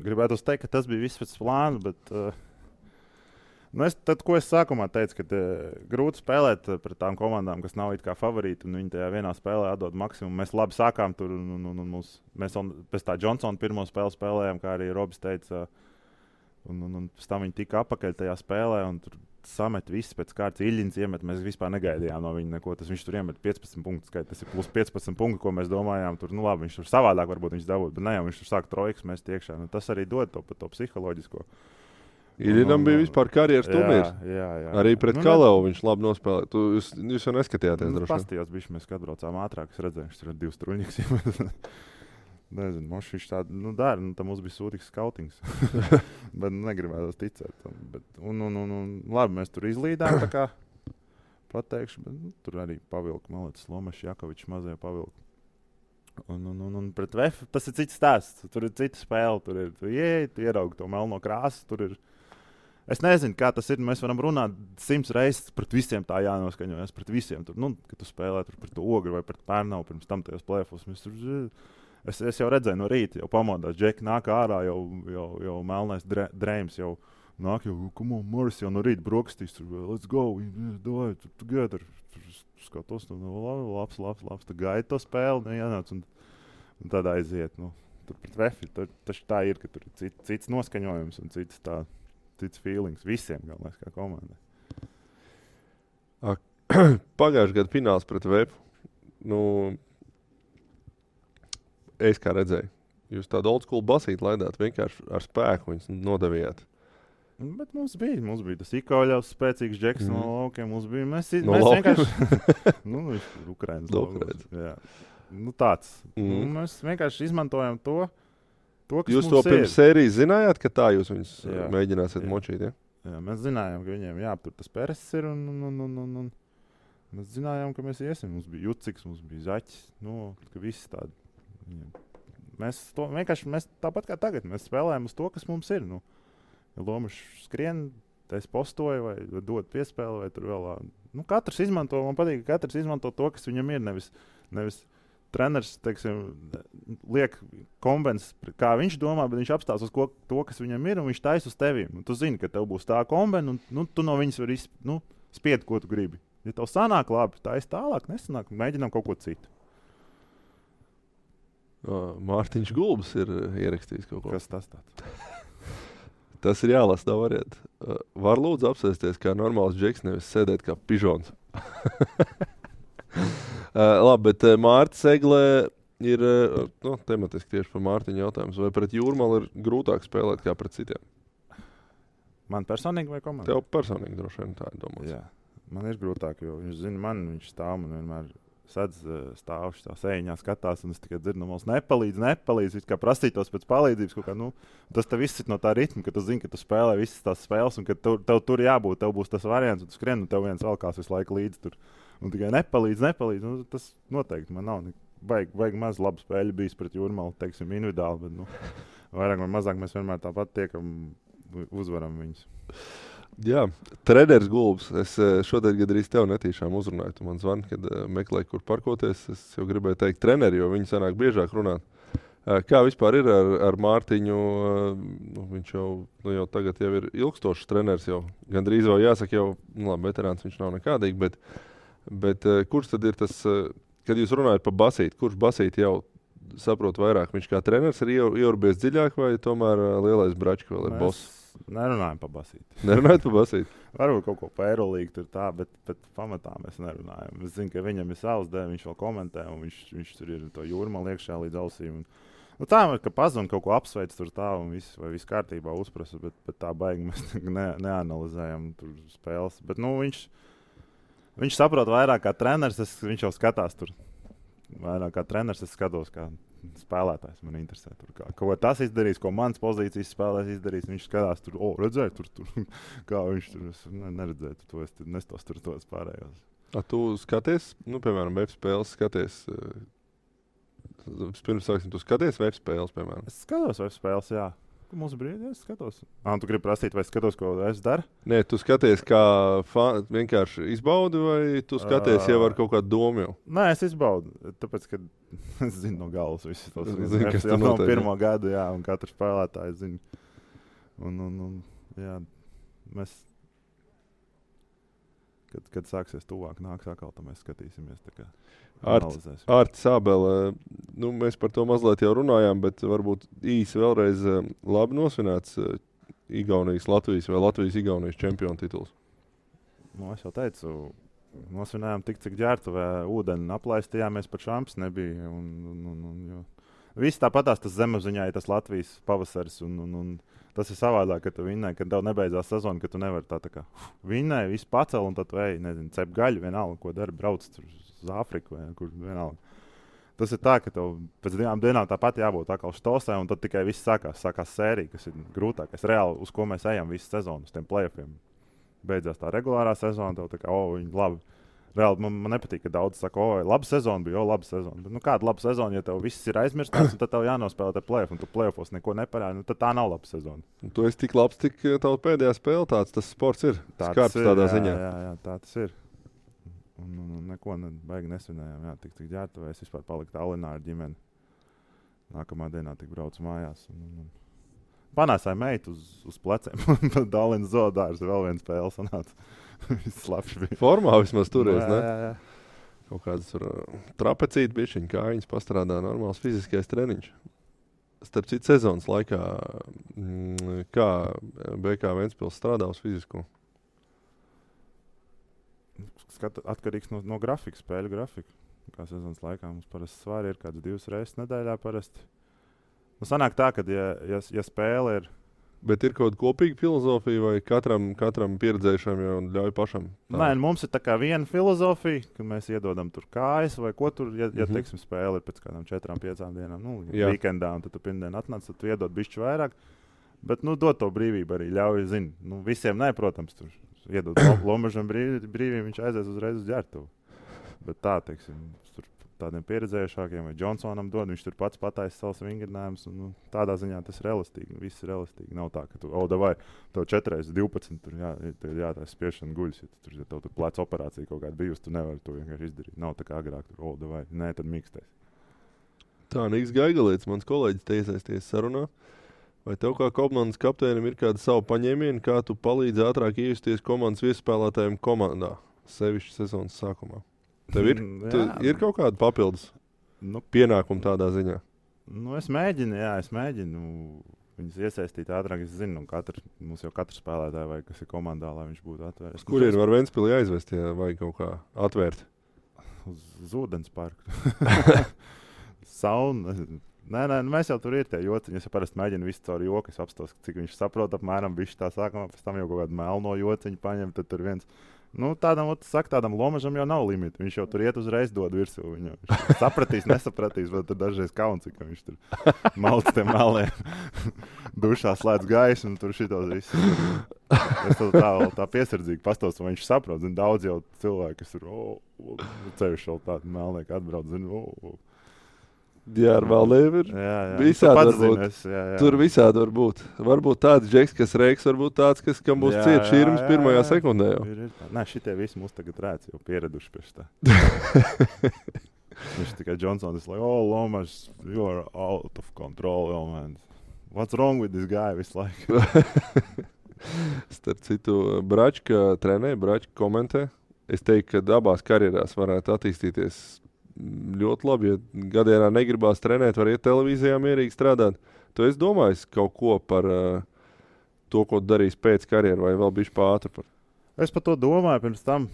Gribētu teikt, ka tas bija viss pēc plāna, bet ko es sākumā teicu, ka grūti spēlēt pret tām komandām, kas nav it kā favorīti, un viņi tajā vienā spēlē atdod maksimumu. Mēs labi sākām tur, mēs pēc tā Johnsona pirmo spēli spēlējām, kā arī Robis teica, un pēc tam viņi tika apakaļ tajā spēlē, un tur samet viss pēc kārtas Iļņins iemet. Mēs vispār negaidījām no viņa neko. Viņš tur iemet 15 punktus. Tas ir plus 15 punkti, ko mēs domājām. Tur, labi, viņš tur savādāk varbūt viņš dabūtu, bet ne jau viņš tur sāk trojkas mest iekšā. Tas arī dod to psiholoģisko. Iļņinam bija vispār karjeras turnīrs. Jā. Arī pret Kalevu viņš labi nospēlēja. Jūs jau neskatījāties droši. Pastījās bišķi, mēs atbraucām ātrāk. Es redzēju, viņš tur 2 struņiks iemet. Nezinu, viņš tādu dara. Tam mums bija sūtīgs skautings. Bet negribētu ticēt tam. Labi, mēs tur izlīdām, tā kā pateikšu. Bet, tur arī pavilku, malētas Lomašs, Jakovičs mazie pavilku. Un pret VF tas ir cits stāsts. Tur ir cita spēle. Tur ir, tu ieraugi to melno krāsu. Tur ir. Es nezinu, kā tas ir. Mēs varam runāt 100 reizes pret visiem tā jānoskaņojas. Pret visiem. Tur, kad tu spēlē tur pret Ogri vai pret Pērnavu pirms tam tajos plēfos. Es jau redzēju no rīta, jau pamodās, Džeki nāk ārā, jau melnais drēms, jau nāk jau, come on, Morris jau no rīta brokastīs, tur, let's go, davai, together. Skatos, labs, tu gaidi to spēli, jānāc, un tad aiziet, tur pret Vefi, taču tā ir, ka tur ir cits noskaņojums un cits feelings visiem, galvenais, kā komandai. Pagājušajā gadu fināls pret Vefu, es kā redzēju, jūs tādu old school basīti laidāt, vienkārši ar spēku viņus nodevījāt. Bet mums bija tas Ikoļovs, spēcīgs džeks no laukiem. Mēs laukiem? vienkārši... Ukrainas. Jā. Tāds. Mēs vienkārši izmantojam to kas jūs mums to pirms sērijas zinājāt, ka tā jūs viņus mēģināsiet močīt, ja? Jā, mēs zinājām, ka viņiem jāaptur tas Peres ir un mēs zinājām, ka mēs iesim. Mums bija Juciks, mums bija Zaķis, ka visi tādi. Mēs tāpat kā tagad, mēs spēlējam uz to, kas mums ir, Ja Lomašs skrien, es postoju vai dod piespēli, vai tur vēl. Katrs izmanto, man patīk, ka katrs izmanto to, kas viņam ir. Nevis treneris, teiksim, liek kombens, kā viņš domā, bet viņš apstās uz to, kas viņam ir, un viņš taisa uz tevīm. Un tu zini, ka tev būs tā kombena, un tu no viņas vari spied, ko tu gribi. Ja tev sanāk labi, taisa tālāk, nesanāk, mēģinām kaut ko citu. Mārtiņš Gulbs ir ierakstījis kaut ko. Kas tas tāds? Tas ir jālasa, tā variet. Var lūdzu apsēsties kā normāls džeks, nevis sēdēt kā pižons. Labi, bet Mārta Seglē ir tematiski tieši par Mārtiņu jautājums. Vai pret Jūrmalu ir grūtāk spēlēt kā pret citiem? Man personīgi vai komandai? Tev personīgi droši vien tā ir domāts. Jā, man ir grūtāk, jo viņš zina man, viņš stāv man vienmēr sadz stāvši tā sēņā skatās, un es tikai dzirdu, mums nepalīdz, it kā prasītos pēc palīdzības kaut kā, tas tev viss ir no tā ritma, ka tu zini, ka tu spēlē visas tās spēles, un ka tev tur jābūt, tev būs tas variants, un tu skrien, un tev viens valkās visu laiku līdzi tur, un tikai nepalīdz, tas noteikti man nav, baigi maz labu spēļu bijis pret Jūrmalu, teiksim, individuāli, bet, vairāk vai mazāk mēs vienmēr tāpat tiekam, uzvaram viņus. Jā, treneris Gulbs. Es šodien gandrīz tev netīšām uzrunāju. Tu man zvani, kad meklēju, kur parkoties. Es jau gribēju teikt treneri, jo viņi sanāk biežāk runāt. Kā vispār ir ar Mārtiņu? Viņš jau tagad jau ir ilgstošs treneris. Gandrīz vēl jāsaka, labi, veterāns viņš nav nekādīgi. Bet kurš tad ir tas, kad jūs runājat par basīti, kurš basīti jau saprot vairāk? Viņš kā treneris ir ieurbies dziļāk vai tomēr lielais bračka vēl ir boss? Nerunājam par basīti. Nerunājat par basīti? Varbūt kaut ko par Eirolīgu tur tā, bet pamatā mēs nerunājam. Es zinu, ka viņam ir savs dēļ, viņš vēl komentē, un viņš tur ir to Jūrmalu iekšā līdz ausīm. Tā ir, ka pazvan kaut ko apsveic tur tā, un viss kārtībā uzprasa, bet tā baigi mēs neanalizējam tur spēles. Bet, viņš saprot vairāk kā treneris, viņš jau skatās tur. Vairāk kā treneris es skatos, kā spēlētājs man interesē. Ko tas izdarīs, ko mans pozīcijas spēlēs izdarīs, viņš skatās tur, redzēju tur, kā viņš tur, es neredzēju to, es nestos tur tos pārējos. Tu skaties, piemēram, web spēles skaties, pirms sāksim, tu skaties web spēles, piemēram? Es skatos web spēles, jā. Mums brīdī es skatos. Tu gribi prasīt, vai skatos, ko es daru? Nē, tu skaties, kā vienkārši izbaudi, vai tu skaties jau ar kaut kādu domu jau? Nē, es izbaudu, tāpēc, ka es zinu no galvas visus tos. Kas jau no pirmo gadu, jā, un katru spēlētāju zinu. Jā, mēs, kad sāksies tuvāk, nāks atkal, tad mēs skatīsimies tā kā. Ārtis Ābele, mēs par to mazliet jau runājām, bet varbūt īsi vēlreiz labi nosvinēts Igaunijas Latvijas vai Latvijas Igaunijas čempionu tituls. Es jau teicu, nosvinējām tik, cik ģērbtuvē ūdeni aplaistījāmies, pat šamps nebija. Viss tāpatās tas zemapziņā ir tas Latvijas pavasaris, un tas ir savādāk, ka tu vinnēji, kad tev nebeidzās sezona, ka tu nevari tā kā vinnēji, visu pacel, un tad tu cep gaļu vienalga, ko dari, brauc tur uz Āfriku vai kur vienalga. Tas ir tā, ka tev pēc 2 dienām tāpat jābūt atkal štosē, un tad tikai viss sākās sērija, kas ir grūtākais. Reāli, uz ko mēs ejam visu sezonu, uz tiem play-offiem. Beidzās tā regulārā sezona, tev tā kā, viņi labi. Reāli, man nepatīk, ka daudz saka, laba sezona bija, laba sezona. Bet, kāda laba sezona, ja tev viss ir aizmirstāts, tad tev jānospēlē te play-off, un tu play-offos neko neparādi, tad tā nav laba sezona. Tu esi tik labs, tik tava pēdējā spēle tāds, tas sports ir. Skarps tādā ziņā. Jā, tā tas ir. Un neko baigi nesvinējām. Jā, tik ģērbtuvē, es vispār paliku Tallinā ar ģimeni. Nākamā dienā tik braucu mājās. Panāsāja meitu uz pleciem. Dalins Zodārs vēl viens spēle sanāca. Slapš bija. Formā vismaz toreiz, ne? Jā. Kaut kādas trapecīti bišķiņ, kājiņas pastrādā, normāls fiziskais treniņš. Starp citu sezonas laikā, kā BK Ventspils strādā uz fizisko? Atkarīgs no grafika, spēļu grafika. Kā sezonas laikā mums parasti svari ir kāds 2 reizes nedēļā parasti. Nu, sanāk tā, ka ja spēle ir... Bet ir kaut kāda kopīga filozofija vai katram pieredzējušam jau ļauj pašam? Nē, mums ir tā kā viena filozofija, ka mēs iedodam tur kājas vai ko tur, ja teiksim, spēle ir pēc kādām 4-5 dienām, weekendā, un tad tu pirmdien atnāc, tad tu iedod bišķi vairāk. Bet, dod to brīvību arī, ļauj, visiem nē, protams, tur iedod Lomažam brīvību, viņš aizies uzreiz uz ģertuvu. Bet tā, teiksim, tur tādiem pieredzējušākiem vai Johnsonam dod, viņš tur pats pataisa savus vingrinājumus, un tādā ziņā tas ir elastīgi, viss ir elastīgi. Nav tā, ka tu, davai, tev 4x12, tur jātaisa spiešana guļas, ja tev tur pleca operācija kaut kāda bijusi, tu nevari to vienkārši izdarīt. Nav tā kā agrāk, tur, davai, nē, tad mīkstais. Tā, Niks Gaigalietis, mans kolēģis, te iesaisties sarunā. Vai tev kā komandas kapteinim ir kāda savu paņēmienu, kā tu palīdzi ātrāk iejusties komandas viesspēlētājiem komandā, sevišķi sezonas sākumā? Tev ir kaut kāda papildus pienākuma tādā ziņā? Es mēģinu viņus iesaistīt ātrāk. Es zinu, mums jau katrs spēlētāji vai kas ir komandā, lai viņš būtu atvērts. Kur ir var Ventspili aizvest, ja vajag kaut kā atvērt? Uz ūdens parku. Sauna. Nē, mēs jau tur ir tie jociņi. Es parasti mēģinu visu caur joku. Es apstos, cik viņš saprot apmēram bišķi tā sākumā, pēc tam jau kaut kādu melno jociņu paņem, tad tur viens... tādam Lomažam jau nav limita. Viņš jau tur iet uzreiz dod virsū. Viņš sapratīs, nesapratīs, bet tur dažreiz kauns, ka viņš tur malc tiem melniem. Dušā slēdz gaisu un tur šitos viss. Es tā piesardzīgi pastos, un viņš saprot. Daudz jau cilvēki, kas tur ceļš vēl tādu melnieku atbrauc. Jā, ar Valdēm ir visādi varbūt. Tur visādi var būt. Varbūt tāds džeks, kas reiks, varbūt tāds, kam būs ciet šķirms pirmajā sekundē jau. Nē, šitie visi mums tagad rēc, jau pieraduši pie tā. Viņš tikai Johnsons, Lomaž, you are out of control, man. What's wrong with this guy visu laiku? Starp citu, Bračka trenē, Bračka komentē. Es teiktu, ka abās karjerās varētu attīstīties ļoti labi, ja gadienā negribās trenēt, var iet televīzijā mierīgi strādāt. Tu esi domājis kaut ko par to, ko darīs pēc karjeru, vai vēl bišķi pātri par? Es par to domāju pirms tam.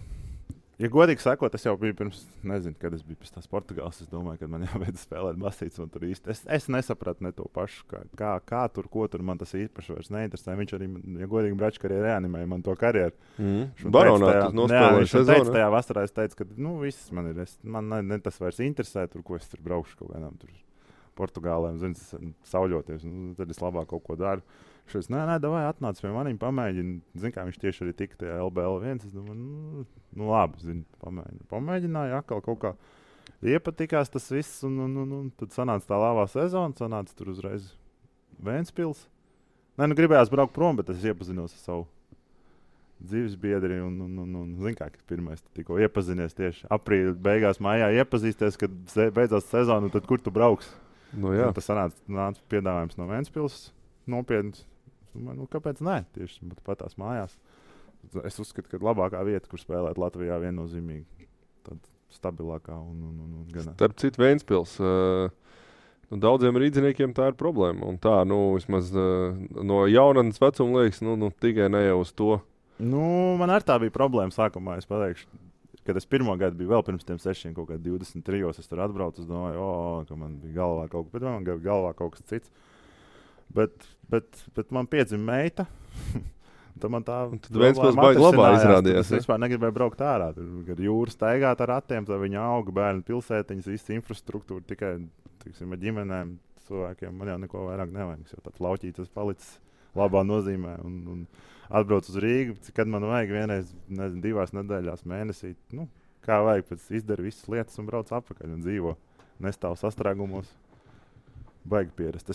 Ja godīgi sakot, es jau biju pirms, nezinu, kad es biju pēc tās Portugāles, es domāju, ka man jābeidz spēlēt basīts, un tur īsti. Es nesapratu ne to pašu, kā tur, ko tur man tas īpaši vairs neinteresē. Viņš arī, ja godīgi Bračka arī reanimēja man to karjeru. Baronā tas nospēlēja sezonu. Tajā vasarā es teicu, ka, viss man ir, man ne tas vairs interesē, tur, ko es tur braukšu kaut kādām tur Portugālēm, sauļoties, tad es labāk kaut ko daru. Šis, nē, davai atnāc pie manim, pamēģini. Zinu, kā viņš tieši arī tika tajā LBL1. Es domāju, labi, pamēģināju atkal kaut kā. Iepatikās tas viss, un tad sanāca tā labā sezona, sanāca tur uzreiz Ventspils. Nē, gribējās braukt prom, bet es iepazinos ar savu dzīves biedri, un zinu, kā pirmais tikko iepazinies tieši aprīļa beigās mājā iepazīsties, kad beidzās sezona, un tad kur tu brauks? Tas sanāca piedāvājums no Ventspils, nopietns. Kāpēc nē? Tieši patās mājās. Es uzskatu, ka labākā vieta, kur spēlēt Latvijā, viennozīmīgi. Tad stabilākā un gan. Starp citu Ventspils. Daudziem rīdziniekiem tā ir problēma. Un tā, vismaz no jaunatnes vecuma liekas, tikai ne jau uz to. Man arī tā bija problēma sākumā. Es pateikšu, kad es pirmo gadu biju vēl pirms tiem 6, kaut kā 23, es tur atbraucu, es domāju, ka man bija galvā kaut kas, bet man bija galvā kaut kas cits. Bet man piedzima meita. Tad man tā Ventspils baigi labā izrādījās. Es vispār negribēju braukt ārā. Kad jūra staigāt ar ratiem, tad viņa auga bērnu pilsētiņas, visa infrastruktūra tikai, tiksim, ar ģimenēm, cilvēkiem. Man jau neko vairāk nevajag. Jo tāds lauķītas palicis labā nozīmē. Un atbrauc uz Rīgu, kad man vajag vienreiz, 2 nedēļās mēnesī. Kā vajag, pēc izdara visas lietas un brauc atpakaļ un dzīvo. Nestāv sastrēgumos. Baigi pierast.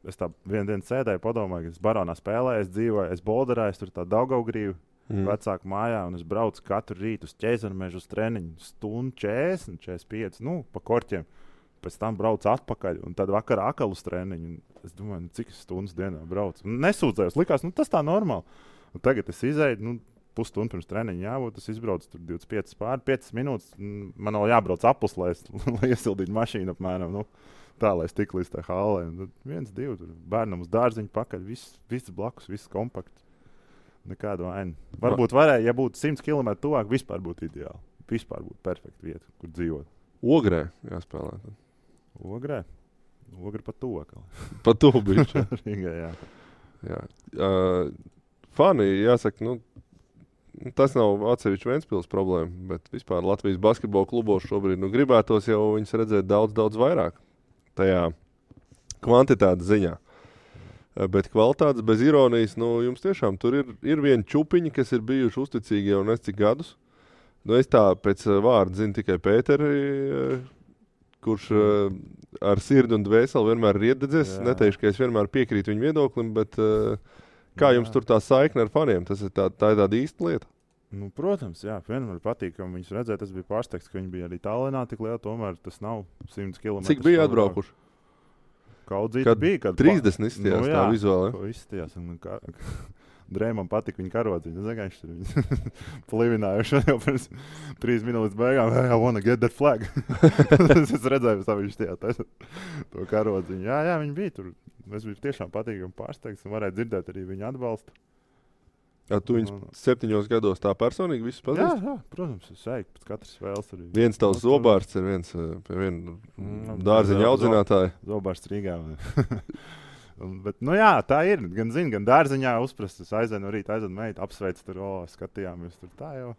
Es tā vienu dienu sēdēju, padomāju, ka es Baronā spēlēju, es dzīvoju, es bolderēju, tur tā Daugavgrīvu vecāku mājā, un es braucu katru rītu uz Ķēzarmežu uz treniņu, stundu 40, 45, pa korķiem. pēc tam braucu atpakaļ, un tad vakarā atkal uz treniņu. Es domāju, cik stundas dienā braucu. Nesūdzējos, likās, tas tā normāli. Un tagad es izēju, pusstundu pirms treniņa jābūt, es izbraucu tur 25 minūtes. Man vēl jābrauc apus, lai iesildītu mašīnu apmēram. Tā, lai es tik līdz tā hallē. 1, 2, tur bērnam uz dārziņu pakaļ, viss blakus, viss kompakts. Nekādu vainu. Varbūt varēja, ja būtu 100 km tuvāk, vispār būtu ideāli. Vispār būtu perfekta vieta, kur dzīvot. Ogrē jāspēlē. Ogrē pa to. Pa to bišķi. Rīgā, jā. Fani, jāsaka, tas nav atsevišķi Ventspils problēma, bet vispār Latvijas basketbola klubos šobrīd gribētos jau viņus redzēt daudz vairāk tajā kvantitātes ziņā. Bet kvalitātes bez ironijas, jums tiešām tur ir viena čupiņa, kas ir bijuši uzticīgi jau nes cik gadus. Es tā pēc vārda zinu tikai Pēteri, kurš ar sirdi un dvēseli vienmēr ir iededzies. Neteikšu, ka es vienmēr piekrītu viņu viedoklim, bet kā jums tur tā saikne ar faniem? Tā ir tāda īsta lieta. Protams, jā, vienmēr patīkami viņus redzēt. Tas bija pārsteigts, ka viņi bija arī Tallinā tik liela, tomēr tas nav 100 km. Cik bija atbraukuši? Kaudzīti bija, kad 30 izstījās tā vizuāli. Izstījās, Drēmam patika viņa karodziņa. Es zinu, viņš tur plivinājuši jau pirms 3 minūtes beigām. I wanna get that flag. Es redzēju, ka viņš to karodziņu. Jā, viņi bija tur. Es biju tiešām patīkami pārsteigts un varēju dzirdēt arī viņa atbalstu. Tu viņus 7 gados tā personīgi visus pazīsti? Jā, protams, es eju pēc katras spēles. Viens tavs zobārsts ir viens pie viena dārziņa audzinātāja. Zobārsts Rīgā. Bet, tā ir. Gan zinu, gan dārziņā uzprast. Es aizēnu rīt, meitu, apsveicu tur, skatījāmies tur tā jau.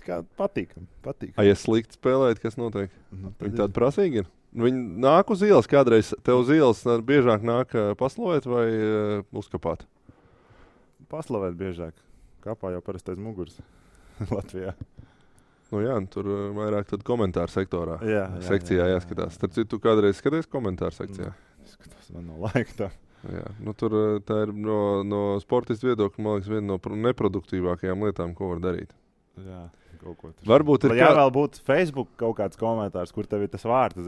Tā kā patīkam. Ja slikti spēlēt, kas notiek? Viņi tādi prasīgi ir? Viņi nāk uz ielas kādreiz. Tev uz ielas biežāk nāk paslavēt vai uzkapāt? Paslavēt biežāk. Kapā jau parasti aiz muguras Latvijā. Tur vairāk tad komentāru sektorā. Sekcijā jāskatās. Starp citu, tu kādreiz skaties komentāru sekcijā? Skatos, man no laika tā. Tur tā ir no sportistu viedokļa, man liekas, viena no neproduktīvākajām lietām, ko var darīt. Jā, kaut ko tur. Varbūt ir vēl būtu Facebook kaut kāds komentārs, kur tev ir tas vārds,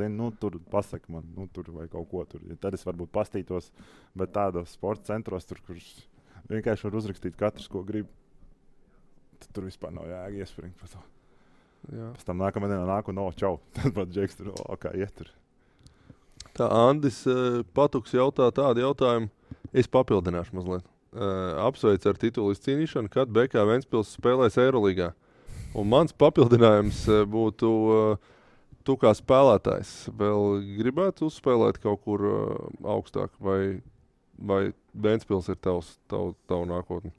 tur pasaka man, tur vai kaut ko tur. Tad es varbūt pastītos, bet tādos sporta centros tur, kurš vienkārši var uzrakstīt katrs, ko grib. Tur vispār nav jēga iespringt par to. Pēc tam nākamā dienā nāk un čau. Tad pat Džeks tur, kā iet tur. Tā Andis Patuks jautā tādu jautājumu. Es papildināšu mazliet. Apsveicu ar titulu izcīnīšanu, kad BK Ventspils spēlēs Eirolīgā. Un mans papildinājums būtu tu kā spēlētājs. Vēl gribētu uzspēlēt kaut kur augstāk vai Ventspils ir tavu nākotni?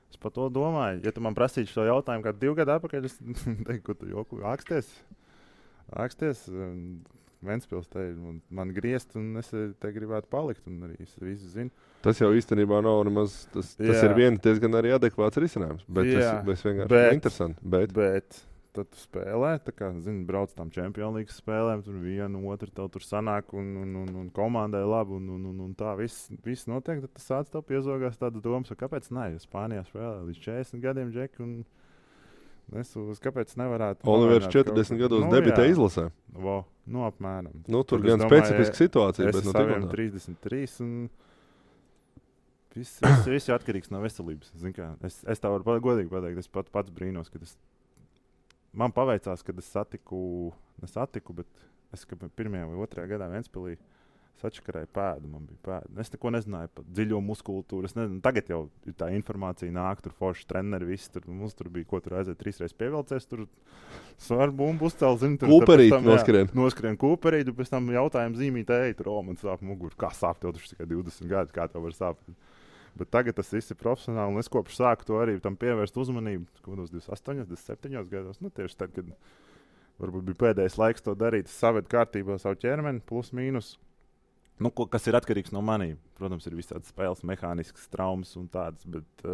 Es par to domāju. Ja tu man prasītu šo jautājumu kādu 2 gadu atpakaļ, es teiktu, ka tu joku āksties. Ventspils te ir man griezt, un es te gribētu palikt, un arī es visu zinu. Tas jau īstenībā nav nemaz, tas ir diezgan arī adekvāts risinājums, bet tas vienkārši interesanti. Bet tad tu spēlē, tā kā, brauc tām Champions League spēlēm, tur vienu, otru, tev tur sanāk, un komandai labi, un tā viss notiek, tad tas sāc tev piezogās tāda domas, kāpēc ne, jo Spānijā spēlē līdz 40 gadiem, Džeki, un kāpēc nevarētu... Olivers 40 gados debitē izlasē. Apmēram. Tur gan specifiska situācija, bet no saviem 33, un viss ir atkarīgs no veselības. Es tā varu godīgi pateikt, es pats brīnos, kad man paveicās, kad es satiku, bet es 1. vai 2. gadā Ventspilī sačakarēju pēdu, man bija pēda. Es neko nezināju par dziļo muskultūru. Tagad jau tā informācija nāk, tur forši treneri, visi tur. Mums tur bija, ko tur aiziet 3 reizes pievilcies, tur svaru bumbu uzcēl, Kūperīt noskrien. Noskrien kūperīt, un pēc tam jautājumu zīmīt, man sāp muguru. Kā sāp tev taču tikai 20 gadi, kā tev var sāpt? Bet tagad tas viss ir profesionāli, un es kopš sāku to arī tam pievērst uzmanību, kādos 28, 27 gados. Tieši tad, kad varbūt bija pēdējais laiks to darīt, es savedu kārtībā savu ķermeni, plus mīnus. Kas ir atkarīgs no maniem. Protams, ir visādas spēles, mehāniskas traumas un tādas, bet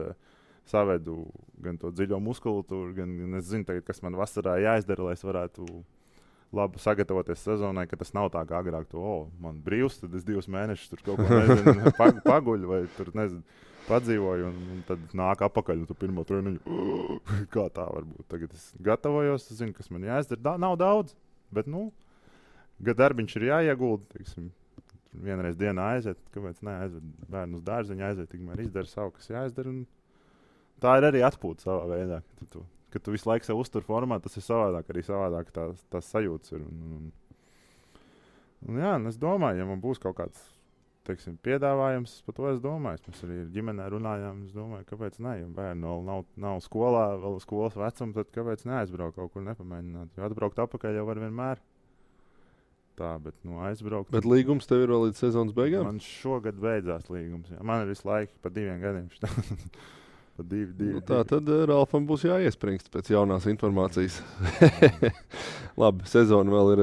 savedu gan to dziļo muskultūru, gan es zinu, tagad, kas man vasarā jāizdara, lai es varētu labi sagatavoties sezonai, ka tas nav tā kā agrāk man brīvs, tad es 2 mēnešus tur kaut ko paguļu vai tur, padzīvoju un tad nāk apakaļ un tu pirmo treniņu. Kā tā var būt? Tagad es gatavojos, zinu, kas man jāizdara. Nav daudz, bet darbiņš ir jāiegulda, teiksim, vienreiz dienā aiziet, kāpēc neaiziet bērnu uz dārziņu, aiziet, tikmēr izdara savu, kas jāizdara. Un tā ir arī atpūta savā veidā. Kad tu visu laiku sev uztur formā, tas ir savādāk, arī savādāk tās sajūtas ir. Un jā, un es domāju, ja man būs kaut kāds, teiksim, piedāvājums, par to es domāju. Mēs arī ģimenē runājām, es domāju, kāpēc ne, ja bērni vēl nav skolā, vēl skolas vecuma, tad kāpēc neaizbraukt kaut kur nepamēģināt, jo atbraukt apakaļ jau var vienmēr. Tā, bet aizbraukt. Bet līgums tev ir vēl līdz sezonas beigām? Man šogad beidzās līgums, jā. Man ir visu laiku pa 2 gadiem. Pa 2. Tā tad Ralfam būs jāiespringst pēc jaunās informācijas. Labi, sezona vēl ir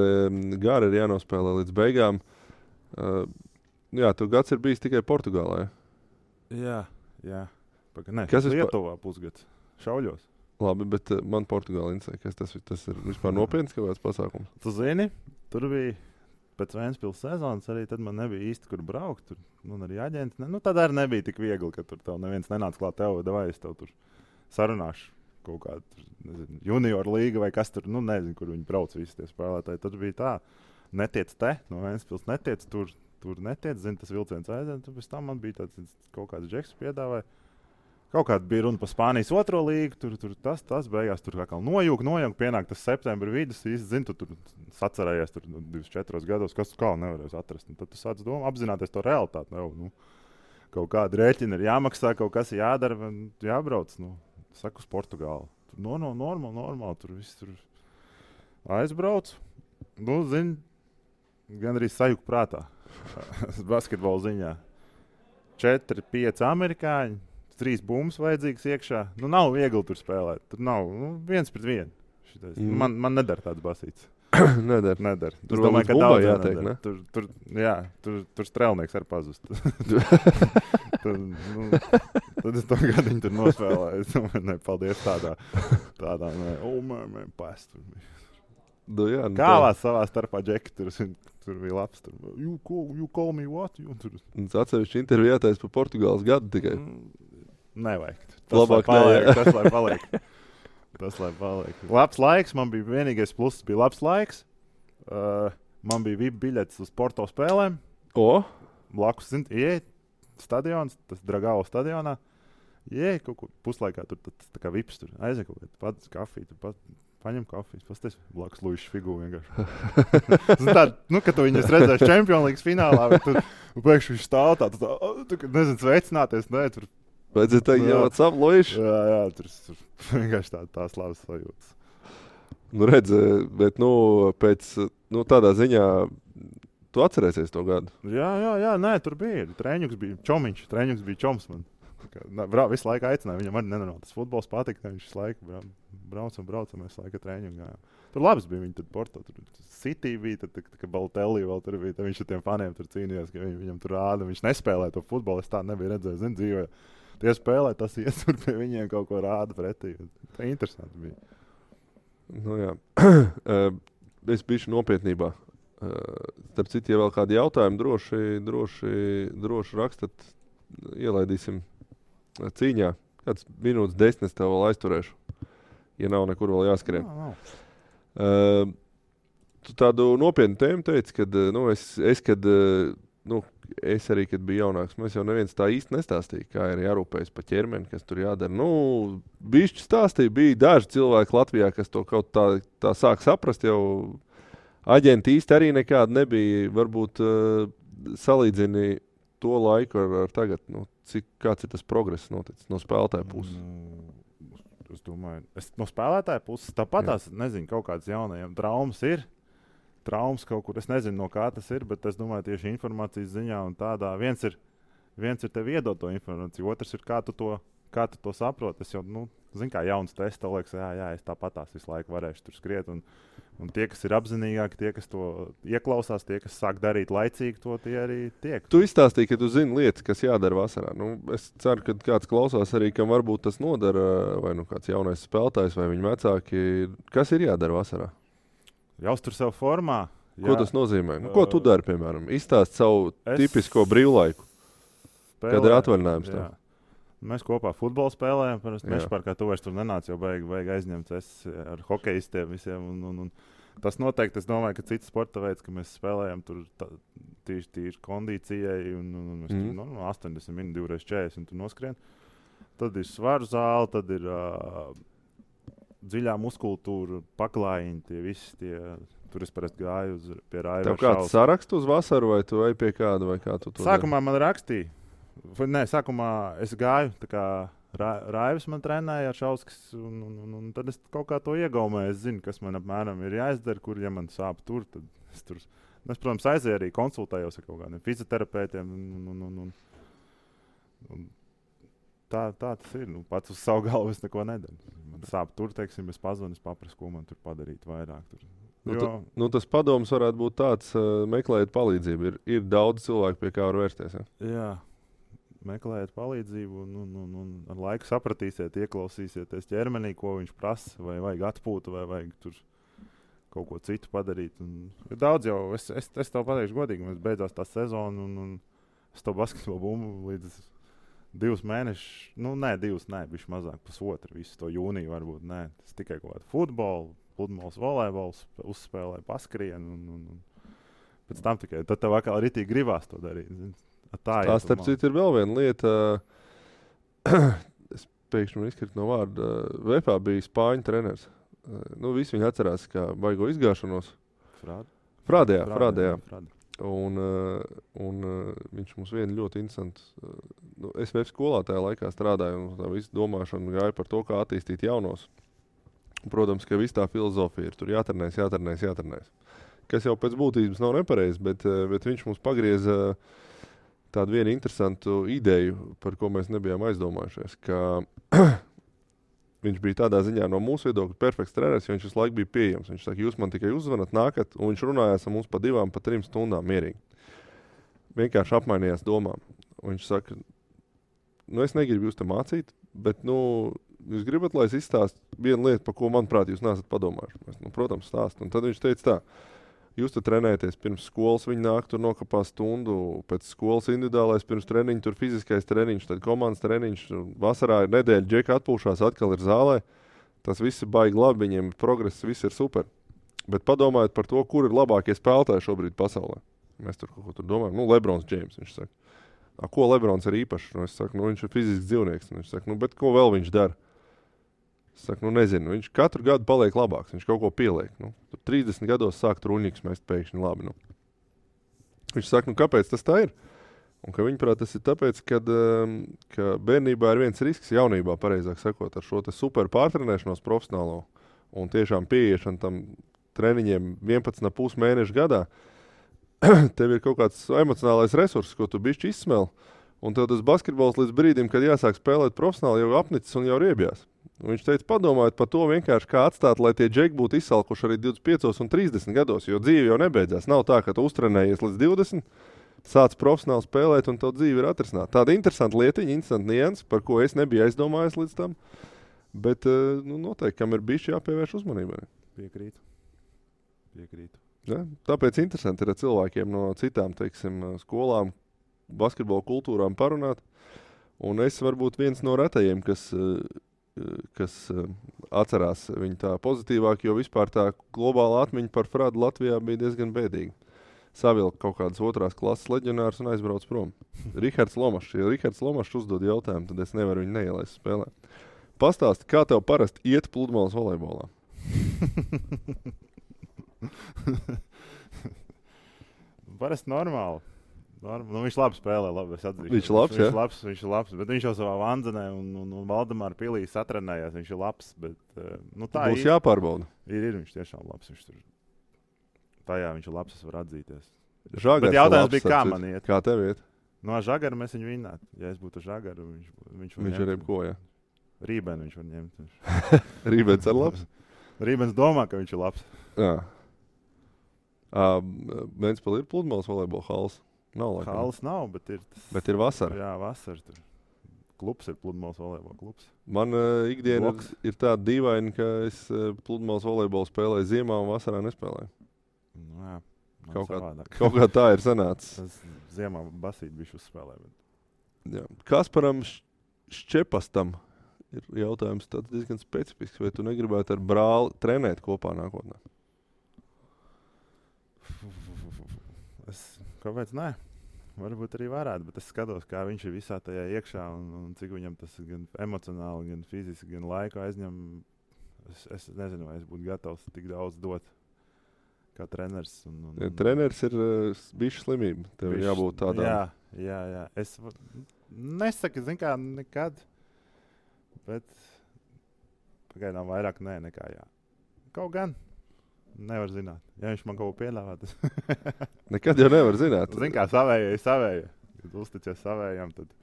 gara, ir jānospēlē līdz beigām. Jā, tu gads ir bijis tikai Portugālē. Jā. Kas Lietuvā pusgads šauļos. Labi, bet man Portugāla interesē. Kas tas ir vispār nopietns kaut kāds pasākums? Tu zini, tur bija pēc Ventspils sezonas arī tad man nebija īsti, kur braukt. Tur arī aģenti. Tad arī nebija tik viegli, ka tur tev neviens nenāca klāt tev, vai es tev tur sarunāšu kaut kādu, nezinu, junior līga vai kas tur, nezinu, kur viņi brauc visi tie spēlētāji. Tad bija tā, netiec no Ventspils, netiec tur netiec, zini, tas vilciens aiziet. Tad pēc tam man bija tāds kaut kāds džeks piedāvāja. Kaut kāda bija runa par Spānijas 2. līgu, tur tas beigās tur kā nojūg, pienāk tas septembra vidus, īsti zini, tu tur sacerējies tur 24 gados, kas tu kā nevarēs atrast. Un tad tu sāc apzināties to realitāti. Kaut kāda rēķina ir jāmaksā, kaut kas jādara, jābrauc. Saku uz Portugālu. Tur normāli, tur viss tur aizbrauc. Zini, gan arī sajūg prātā. Basketbola ziņā. 4, 5 amerikāņi. 3 bumbas vajadzīgas iekšā. Nav viegli tur spēlēt. Tur nav 1 pret 1. Man nedara tāds basīts. Nedara. Tur domāju, ka daudz jātiek, ne? Tur strēlnieks ar pazust. Tad es to gadiņu tur nospēlēju. Es domāju, paldies tādā past. Kālās savā starpā džeki tur bija labs. You call me what? Tas atsevišķi intervijā taisa par Portugāles gadu tikai. Nevajag. Tas lai paliek. Labs laiks, man bija vienīgais pluss, bija labs laiks. Man bija VIP biļetes uz Porto spēlēm. Blakus, ieej stadions, tas Dragao stadionā. Ieej kaut kur puslaikā, tur tas tā kā VIPs tur. Aizej kaut kādā, pats kafiju, tur paņem kafijas, pasties blakus Luišs figūru vienkārši. Kad tu viņus redzēsi Champions League finālā, tur pēkšņi viņš stāv tā, nezinu, sveicināties, tur. Vajadzēja teikt, what's up, Luišs? Jā, tur vienkārši tās labas sajūtas. Redz, bet, pēc, tādā ziņā, tu atcerēsies to gadu? Jā, tur bija. Trēņuks bija čomiņš, trēņuks bija čoms man. Visu laiku aicināja, viņam arī nenormāli. Tas futbols patika, viņš visu laiku braucam, visu laiku trēņumu gājām. Tur labs bija, viņi tur Porto, tur City bija, tad ka Balotelli vēl tur bija, tad viņš ar tiem faniem tur cīnījās, ka viņam tur rāda, viņš nespēlēja to futbolu, es tā nebiju redzējis, zinu, dzīvē. Tie spēlē, tas iesur pie viņiem kaut ko rāda pretī. Tā interesanti bija. Jā. Es bišu nopietnībā. Starp citu, ja vēl kādi jautājumi, droši rakstat, ielaidīsim cīņā. Kāds minūtes 10 tev vēl aizturēšu, ja nav nekur vēl jāskrien. Tu tādu nopietnu tēmu teici, kad es arī, kad biju jaunāks, mēs jau neviens tā īsti nestāstīja, kā ir jārūpējas pa ķermeni, kas tur jādara. Bišķi stāstīja, bija daži cilvēki Latvijā, kas to kaut tā sāk saprast, jau aģenti īsti arī nekādi nebija. Varbūt salīdzini to laiku ar tagad, kāds ir tas progress noticis no spēlētāja puses? Es domāju, no spēlētāja puses tāpatās, nezinu, kaut kāds jaunajiem traumas ir. Traumas kaut kur, es nezinu, no kā tas ir, bet es domāju, tieši informācijas ziņā un tādā. Viens ir tev iedot to informāciju, otrs ir, kā tu to saproti. Es jau, zinu, kā jauns tests, tev liekas, jā, es tāpatās visu laiku varēšu tur skriet. Un tie, kas ir apzinīgāki, tie, kas to ieklausās, tie, kas sāk darīt laicīgi, to tie arī tiek. Tu izstāstīji, ka tu zini lietas, kas jādara vasarā. Es ceru, ka kāds klausās arī, kam varbūt tas nodara, vai kāds jaunais spēlētājs, vai viņa vecāki. Kas ir jādara vasarā? Jāuztur sev formā. Ko tas nozīmē? Ko tu dari, piemēram? Izstāst savu tipisko brīvlaiku, kad ir atvaļinājums tev. Mēs kopā futbolu spēlējam. Mežparkā tu vairs tur nenāc, jau beig aizņemts. Es ar hokejistiem visiem. Tas noteikti, es domāju, ka cits sporta veids, ka mēs spēlējam tur tīri kondīcijai, un mēs tur, 80 minūtes, 2x40 un tu noskrien. Tad ir svaru zāle, tad ir dziļā muskultūra, paklājiņi, tie visi tie. Tur es parasti gāju pie Raiva. Tev kāds sarakstu uz vasaru, vai tu ej pie kāda, vai kā tu to Sākumā man rakstīja. Nē, sākumā es gāju, tā kā Raivs man trenēja ar Šauskis, un tad es kaut kā to iegaumēju. Es zinu, kas man apmēram ir jāizdara, kur, ja man sāp tur, tad es tur. Es, protams, aizēju arī konsultējos ar kaut kādiem fizioterapeitiem. Un tā tas ir. Pats uz savu galvu es neko nedaru. Man sāp tur, teiksim, es pazvanu, es paprasu, ko man tur padarīt vairāk. Tur. Tas padoms varētu būt tāds, meklējiet palīdzību. Ir daudz cilvēku, pie kā var vērsties. Ja? Jā. Meklējiet palīdzību, un ar laiku sapratīsiet, ieklausīsieties ķermenī, ko viņš prasa, vai vajag atpūtu, vai vajag tur kaut ko citu padarīt. Ir daudz jau, es tev pateikšu godīgi, mēs beidzās tā sezona, un es to basketbolu bumbu līdz 2 mēnešus, bišķi mazāk, pusotru, visu to jūniju varbūt, tas tikai kaut kādu futbolu, pludmales volejbols, uzspēlēju, paskrienu, un pēc tam tikai, tad tev atkal ritīgi gribās to darīt. Tā starp citu ir vēl viena lieta. Es pēkšņi izkrītu no vārda. Vepā bija spāņu treneris. Visi viņi atcerās, kā baigo izgāšanos. Frādē. Un viņš mums vienu ļoti interesantu. Es VF skolā tajā laikā strādāju, un tā visu domāšanu gāja par to, kā attīstīt jaunos. Protams, ka viss tā filozofija ir. Tur jātrenēs. Kas jau pēc būtības nav nepareizi, bet viņš mums pagrieza tādu vienu interesantu ideju, par ko mēs nebijām aizdomājušies, ka viņš bija tādā ziņā no mūsu viedokļa perfekts treneris, jo viņš visu laiku bija pieejams. Viņš saka, jūs man tikai uzzvanat, nākat, un viņš runājās ar mums pa 2, pa 3 stundām mierīgi. Vienkārši apmainījās domām. Un viņš saka, es negribu jūs te mācīt, bet, jūs gribat, lai es izstāstu vienu lietu, par ko, manuprāt, jūs neesat padomājuši. Mēs, protams, stāst. Un tad viņš teica tā, jūs tur trenēties pirms skolas, viņi nāk, tur nokapā stundu, pēc skolas individuālais, pirms treniņa, tur fiziskais treniņš, tad komandas treniņš, vasarā ir nedēļa, džeka atpūšās, atkal ir zālē. Tas viss ir baigi labi, viņiem progress, viss ir super. Bet padomājiet par to, kur ir labākie spēlētāji šobrīd pasaulē. Mēs tur kaut ko tur domājam. Lebrons Džeims, viņš saka. Ko Lebrons ir īpašs? Es saku, viņš ir fizisks dzīvnieks. Viņš saka, bet ko vēl viņš dara? Es saku, nezinu, viņš katru gadu paliek labāks, viņš kaut ko pieliek. Tur 30 gados sāk truņiks mest pēkšņi labi. Viņš saka, kāpēc tas tā ir? Un ka viņuprāt tas ir tāpēc, ka bērnībā ir viens risks, jaunībā, pareizāk sakot, ar šo te super pārtrenēšanos profesionālo un tiešām pieiešanu tam treniņiem 11,5 mēnešu gadā. Tev ir kaut kāds emocionālais resurss, ko tu bišķi izsmeli, un tev tas basketbols līdz brīdim, kad jāsāk spēlēt profesionāli, jau apnicis un jau riebjās. Un viņš teica, padomājiet par to vienkārši, kā atstāt, lai tie džeki būtu izsalkuši arī 25 un 30 gados, jo dzīve jau nebeidzās. Nav tā, ka tu uztrenējies līdz 20, sāc profesionāli spēlēt un tev dzīve ir atrisināta. Tāda interesanta lietiņa, interesanta nianses, par ko es nebiju aizdomājies līdz tam, bet noteikti, kam ir bišķi jāpievērš uzmanībai. Piekrītu. Ja? Tāpēc interesanti ir ar cilvēkiem no citām, teiksim, skolām, basketbola kultūrām parunāt. Un es varbūt viens no retajiem, kas atcerās viņu tā pozitīvāk, jo vispār tā globāla atmiņa par Frādu Latvijā bija diezgan bēdīga. Savilka kaut kādas 2. klases leģionārs un aizbrauc prom. Rihards Lomašs. Ja Rihards Lomašs uzdod jautājumu, tad es nevaru viņu neielaist spēlē. Pastāsti, kā tev parasti iet pludmales volejbolā? Parasti normāli. Viņš labi spēlē, labi, es atzīšu. Viņš ir labs, bet viņš jau savā Vanzenē un Valdemāra pilī satrenējās. Viņš ir labs, bet tā būs jāpārbauda. Ir viņš tiešām labs. Tajā viņš ir labs, es varu atzīties. Žagars bet jautājums bija, kā man iet? Kā tev iet? No Žagara mēs viņu vinnētu. Ja es būtu Žagara, viņš ir jebko, ja? Rībēnu viņš var ņemt. Rībens ir labs? Rībens domā, ka viņš ir labs. Jā. Ventspilī ir pludmales volejbola halls. Halas nav, bet ir vasara. Jā, vasara tur. Klubs ir pludmales volejbola klubs. Man ikdiena ir tāda dīvaina, ka es pludmales volejbolu spēlēju ziemā un vasarā nespēlēju. Jā, kaut kā tā ir sanācis. Tas ziemā basīt bišķi uzspēlē. Jā. Kasparam Šķepastam ir jautājums tāds diezgan specifisks. Vai tu negribētu ar brāli trenēt kopā nākotnē? Kāpēc nē? Varbūt arī varētu, bet es skatos, kā viņš ir visā tajā iekšā un cik viņam tas gan emocionāli, gan fiziski, gan laiku aizņem. Es nezinu, vai es būtu gatavs tik daudz dot kā treneris. Treneris ir bišķi slimība. Tev jābūt tādām. Jā. Es nesaku, zin kā, nekad, bet pagaidām vairāk nē nekā jā. Kaut gan. Nevar zināt. Ja viņš man kaut ko piedāvā, tas nekad jau nevar zināt. Zini, kā savējai. Kad uzticies savējām, tad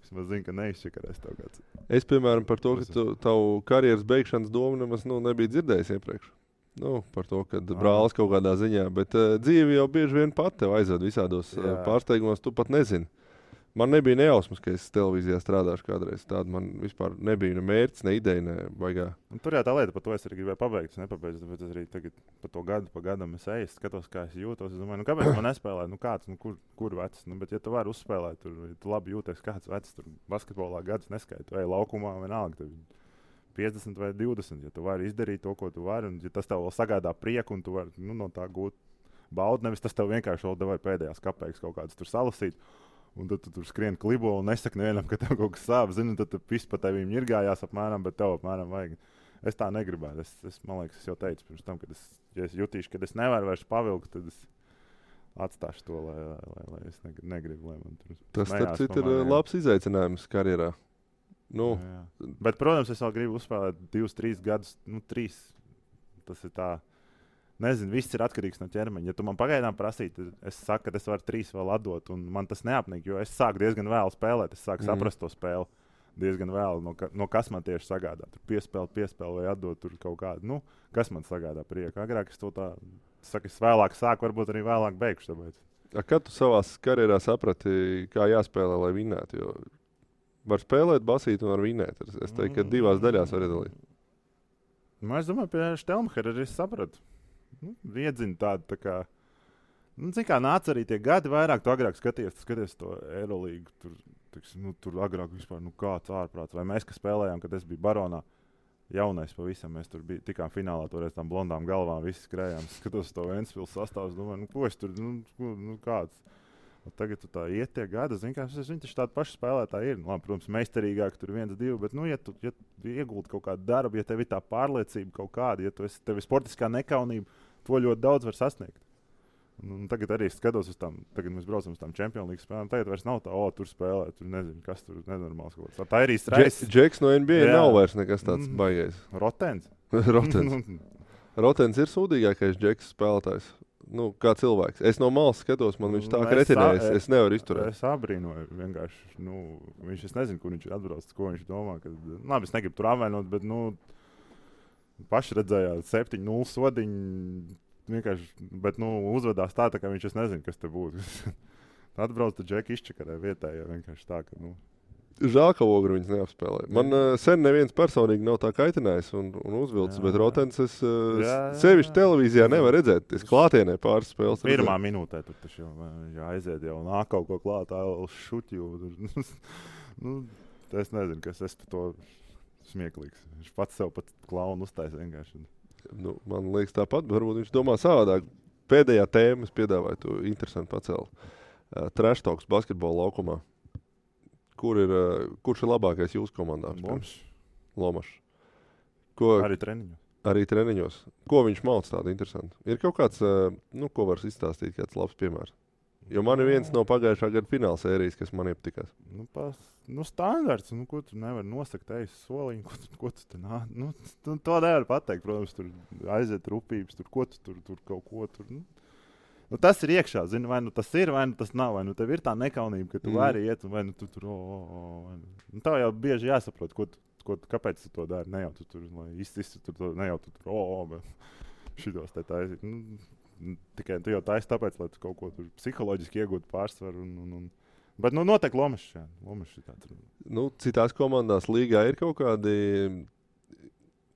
vismaz zini, ka neizšķikarēs tev kāds. Es, piemēram, par to, ka tavu karjeras beigšanas domu nemaz nebija dzirdējis iepriekš. Par to, ka brālis kaut kādā ziņā, bet dzīve jau bieži vien pat tev aizved visādos pārsteigumos, tu pat nezini. Man nebija nejausmas, ka es televīzijā strādāšu kādreiz. Tāda man vispār nebija ne mērķis, ne ideja, ne baigā. Tur jau tā lieta, par to es arī gribēju pabeigt. Es nepabeidzu, tāpēc es arī tagad par to gadu pa gadam es eju, skatos, kā es jūtos. Es domāju, kāpēc man nespēlēt? Kāds, kur vecs? Bet ja tu vari uzspēlēt, ja tu labi jūties, kāds vecs, tur basketbolā gadus neskaita. Vai laukumā vienalga, tev 50 vai 20. Ja tu vari izdarīt to, ko tu vari, un ja tas tev vēl sagādā prieku, un tu vari no tā gūt baudu, nevis tas tev vienkārši vēl devai pēdējās kapeikas kaut kādas tur salasīt. Un tad tu tur skrien klibo un nesaki nevienam, ka tev kaut kas sāp. Zini, tad tu pis pa tevīm ņirgājās apmēram, bet tev apmēram vajag. Es tā negribētu. Man liekas, es jau teicu pirms tam, kad ja es jutīšu, ka es nevaru vairs pavilkt, tad es atstāšu to, lai es negribu, lai man tur tas ir labs izaicinājums karjerā. Jā. Bet, protams, es vēl gribu uzspēlēt 2-3 gadus, 3. Tas ir tā. Nezinu, viss ir atkarīgs no ķermeņa. Ja tu man pagaidām prasītu, es saku, ka es varu 3 vēl atdot, un man tas neapnīk, jo es sāku diezgan vēlu spēlēt. Es sāku saprast to spēli diezgan vēlu, no kas man tieši sagādā. Tur piespēle vai atdot tur kaut kādu. Kas man sagādā prieku. Agrāk es to tā saku, es vēlāk sāku, varbūt arī vēlāk beigšu. Kad tu savā karjerā saprati, kā jāspēlē, lai vinnētu? Jo var spēlēt, basīt un var vinnēt. Es teiktu, ka 2 daļās var iedalīt. Es domāju, pie Štelmhera arī sapratu. Iedzina tādu tā kā. Zini, kā nāca arī tie gadi vairāk, tu agrāk skaties to Eirolīgu. Tur agrāk vispār kāds ārprāts. Vai mēs, kas spēlējām, kad es biju Baronā, jaunais pavisam, mēs tur tikām finālā toreiz tām blondām galvām, visi skrējām. Skatos to Ventspils sastāvus, domāju, ko es tur, kāds. Un tagad tu tā iet tie gadi, zini, kā viņi taču tādi paši spēlētāji ir. Labi, protams, meistarīgāk tur 1-2, bet, ja tu ieguldi kaut kādu darbu, ja tev ir tā pārliecība kaut kāda, ja tev ir sportiskā nekaunība, to ļoti daudz var sasniegt. Un tagad arī skatos uz tām, tagad mēs braucam uz tām Champions League spēlēm, tagad vairs nav tā, tur spēlē, tur nezinu, kas tur nenormāls kaut kāds. Tā ir īsti reizes. Džeks no NBA nav vairs nekas tāds baigais. Rotens. Rotens ir sūdīgākais Džeks spēlētājs. Kā cilvēks. Es no malas skatos, man viņš tā kā retinējis, es nevaru izturēt. Es abrīnoju vienkārši, viņš, es nezinu, kur viņš ir atbraucis, ko viņš domā, labi, es negribu tur apvainot, bet, paši redzējāt 7-0 sodiņu, vienkārši, bet, uzvedās tā, kā viņš, es nezinu, kas te būtu. Atbrauc tu Džeki izčakarē vietējā, vienkārši tā, ka, Žēl, ka Ogru viņas neapspēlē. Man sen neviens personīgi nav tā kaitinājis un uzvilcis, bet Rotens es sevišķi televīzijā nevar redzēt. Es klātienē pāris spēles. Pirmā minūtē tur taču jau aiziet, jau nāk kaut ko klātā, šutju. Es nezinu, kas es to smieklīgs. Viņš pats sev pat klaunu uztais vienkārši. Man liekas tāpat, bet varbūt viņš domā savādāk. Pēdējā tēma es piedāvāju, tu interesanti pacēli. Trash talks basketbola laukumā. Kurš ir labākais jūsu komandā? Lomašs. Arī treniņos. Arī treniņos. Ko viņš māc tādu interesantu? Ir kaut kāds, ko var izstāstīt, kāds labs piemērs? Jo man ir viens no pagājušā gada fināla sērijas, kas man iepatikās. Standarts. Ko tu nevari nosakt soliņu? Ko tu te nāc? To nevar pateikt. Protams, tur aiziet rupības, ko tu tur kaut ko tur. Tas ir iekšā, zini, vai tas ir, vai tas nav. Vai tev ir tā nekaunība, ka tu vari iet, vai tu tur. Tā jau bieži jāsaprot, kāpēc tu to dari. Ne jau tu tur, lai izsistu tur, ne jau tu tur, bet šitos te taisīt. Tikai tu jau taisi tāpēc, lai tu kaut ko tur psiholoģiski iegūtu pārsvaru. Bet noteikti Lomašs. Lomašs ir tāds. Citās komandās līgā ir kaut kādi.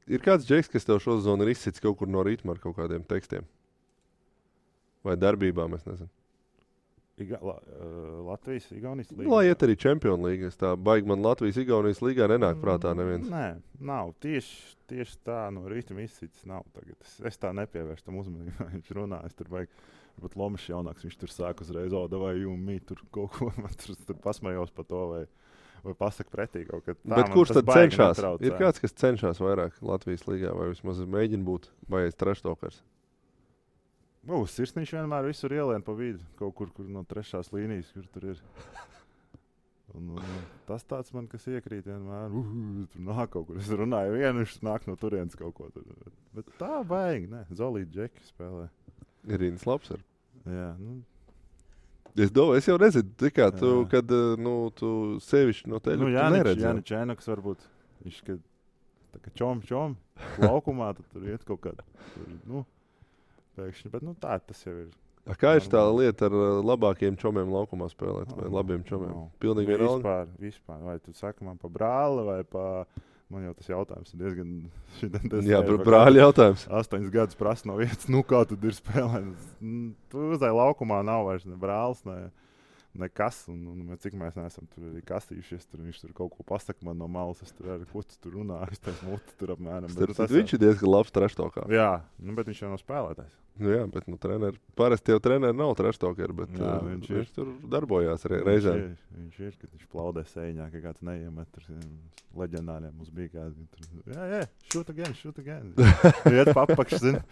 Ir kāds Džeks, kas tev šo zonu ir izsits kaut kur no ritma ar kaut kādiem tekstiem. Vai darbībām, es nezinu. Latvijas, Igaunijas līga. Lai iet arī Čempionu līga. Es tā baigi man Latvijas, Igaunijas līgā nenāk prātā neviens. Nē, nav. Tieši tā no rīta izcits nav tagad. Es tā nepievērstu tam uzmanību. Viņš runā, es tur baigi. Bet Lomašs jaunāks, viņš tur sāk uzreiz, vai jūmī tur kaut ko, man tur pasmējos par to, vai pasaka pretī kaut kā. Bet kurš tad cenšas? Ir kāds, kas cenšas vairāk Latvijas līgā, vai vismaz mēģina būt, vai es treštokars? Sirsniņš vienmēr visur ielien pa vidu, kaut kur no trešās līnijas, kur tur ir. Un tas tāds man, kas iekrīt vienmēr, tur nāk kaut kur. Es runāju vienu, viņš nāk no turienes kaut ko tur. Bet tā baigi, ne, Zolīt Džeki spēlē. Irīnas labs ar. Jā, Es domāju, es jau nezinu, kā tu, kad tu sevišķi no teļu neredzi. Jānis Čēnoks varbūt, viņš, kad tā kā čom, laukumā, tad tur iet kaut kādā, pēkšņi, bet tā tas jau ir. Kā ir tā lieta ar labākiem čomiem laukumā spēlēt, vai labiem čomiem? Pilnīgi vienalga? Vispār. Vai tu saki man pa brāli vai pa... Man jau tas jautājums ir diezgan... Jā, brāļi jautājums. 8 gadus prasa no vietas, kā tad ir spēlēt. Tu uzai laukumā nav vairs ne brālis, nekas. Un cik mēs neesam tur arī kastījušies, viņš tur kaut ko pasaka man no malas. Es tur arī, ko tu tur runā, es teicu muti tur apmēram. Viņš ir diezgan labs treštokā. Jā, bet viņš jau nav spēlētājs. Jā, bet parasti jau treneri nav treštokari, bet jā, viņš tur darbojās reizēm. Viņš ir, kad viņš plaudē sēņā, ka kāds neiemet tur leģendāriem mums bija kādi. Jā, shoot again. Iet papakš, zini.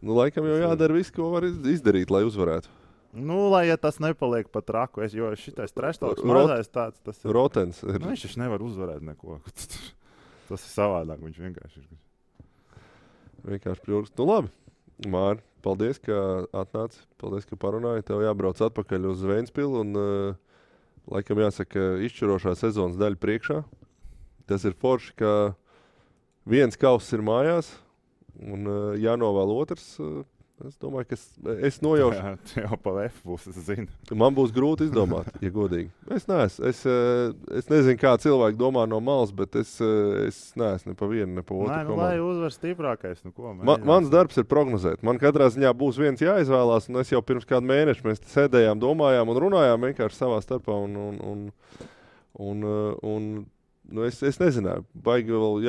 Laikam jau jādara viss, ko var izdarīt, lai uzvarētu. Lai tas nepaliek pat traku, jo šitais treštoks mazais tāds, tas ir. Rotens. Viņš taču nevar uzvarēt neko. Tas ir savādāk, viņš vienkārši ir. Vienkārši pļurks. Labi, Māri, paldies, ka atnāci. Paldies, ka parunāji. Tev jābrauc atpakaļ uz Ventspilu un laikam jāsaka izšķirošā sezonas daļa priekšā. Tas ir forši, ka viens kauss ir mājās un jānovēl otrs. Es domāju, ka es nojaušu. Jā, jau pa F būs, es zinu. Man būs grūti izdomāt, ja godīgi. Es nezinu, kā cilvēki domā no malas, bet es neesmu ne pa vienu, ne pa otru komandu. Lai uzvar stiprākais, ko. Mans darbs ir prognozēt. Man katrā ziņā būs viens jāizvēlās, un es jau pirms kādu mēnešu mēs sēdējām, domājām un runājām vienkārši savā starpā. Es nezināju, baigi vēl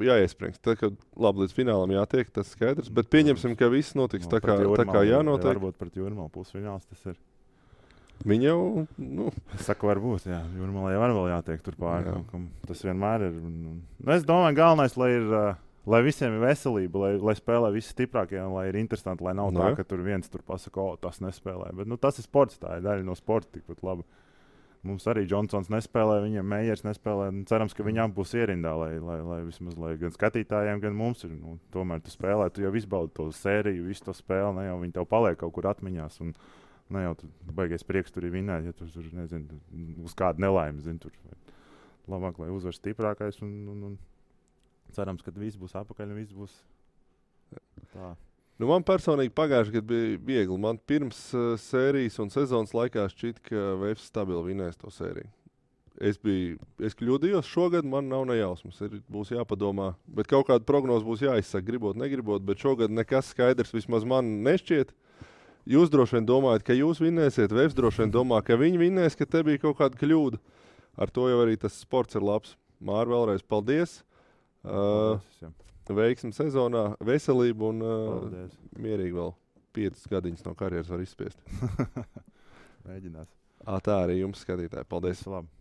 jāiesprings. Tad, kad labi līdz finālam jātiek, tas skaidrs. Bet pieņemsim, ka viss notiks tā kā jānotiek. Varbūt pret Jūrmalu pusfināls tas ir. Viņi jau, Es saku, varbūt, jā. Jūrmalai var vēl jātiek tur pāri. Tas vienmēr ir. Es domāju, galvenais, lai visiem ir veselība, lai spēlē visi stiprākie un lai ir interesanti, lai nav tā, ka tur viens tur pasaka, tas nespēlē. Bet tas ir sports, tā ir daļa no sporta tikpat labi. Mums arī Džonsons nespēlē, viņam Meijers nespēlē. Cerams, ka viņam būs ierindā, lai vismaz gan skatītājiem, gan mums ir. Tomēr tu spēlē, tu jau izbaudi to sēriju, visu to spēli, ne jau viņi tev paliek kaut kur atmiņās. Un ne jau tu baigais prieks tur ir vinēt, ja tu tur, nezinu, uz kādu nelaimi, zini, tur. Labāk, lai uzvar stiprākais un cerams, ka viss būs apakaļ un viss būs tā. Man personīgi pagājušajā gadā bija viegli. Man pirms sērijas un sezonas laikā šķita, ka Vēfs stabili vinēs to sēriju. Es kļūdījos šogad, man nav nejausmas. Būs jāpadomā. Bet kaut kāda prognoze būs jāizsaka, gribot, negribot. Bet šogad nekas skaidrs vismaz man nešķiet. Jūs droši vien domājat, ka jūs vinēsiet. Vēfs droši vien domā, ka viņi vinēs, ka te bija kaut kāda kļūda. Ar to jau arī tas sports ir labs. Māri, vēlreiz paldies. Veiksmi sezonā, veselību un mierīgi vēl 5 gadiņas no karjeras var izspiest. Mēģinās. Tā arī jums, skatītāji. Paldies! Labi.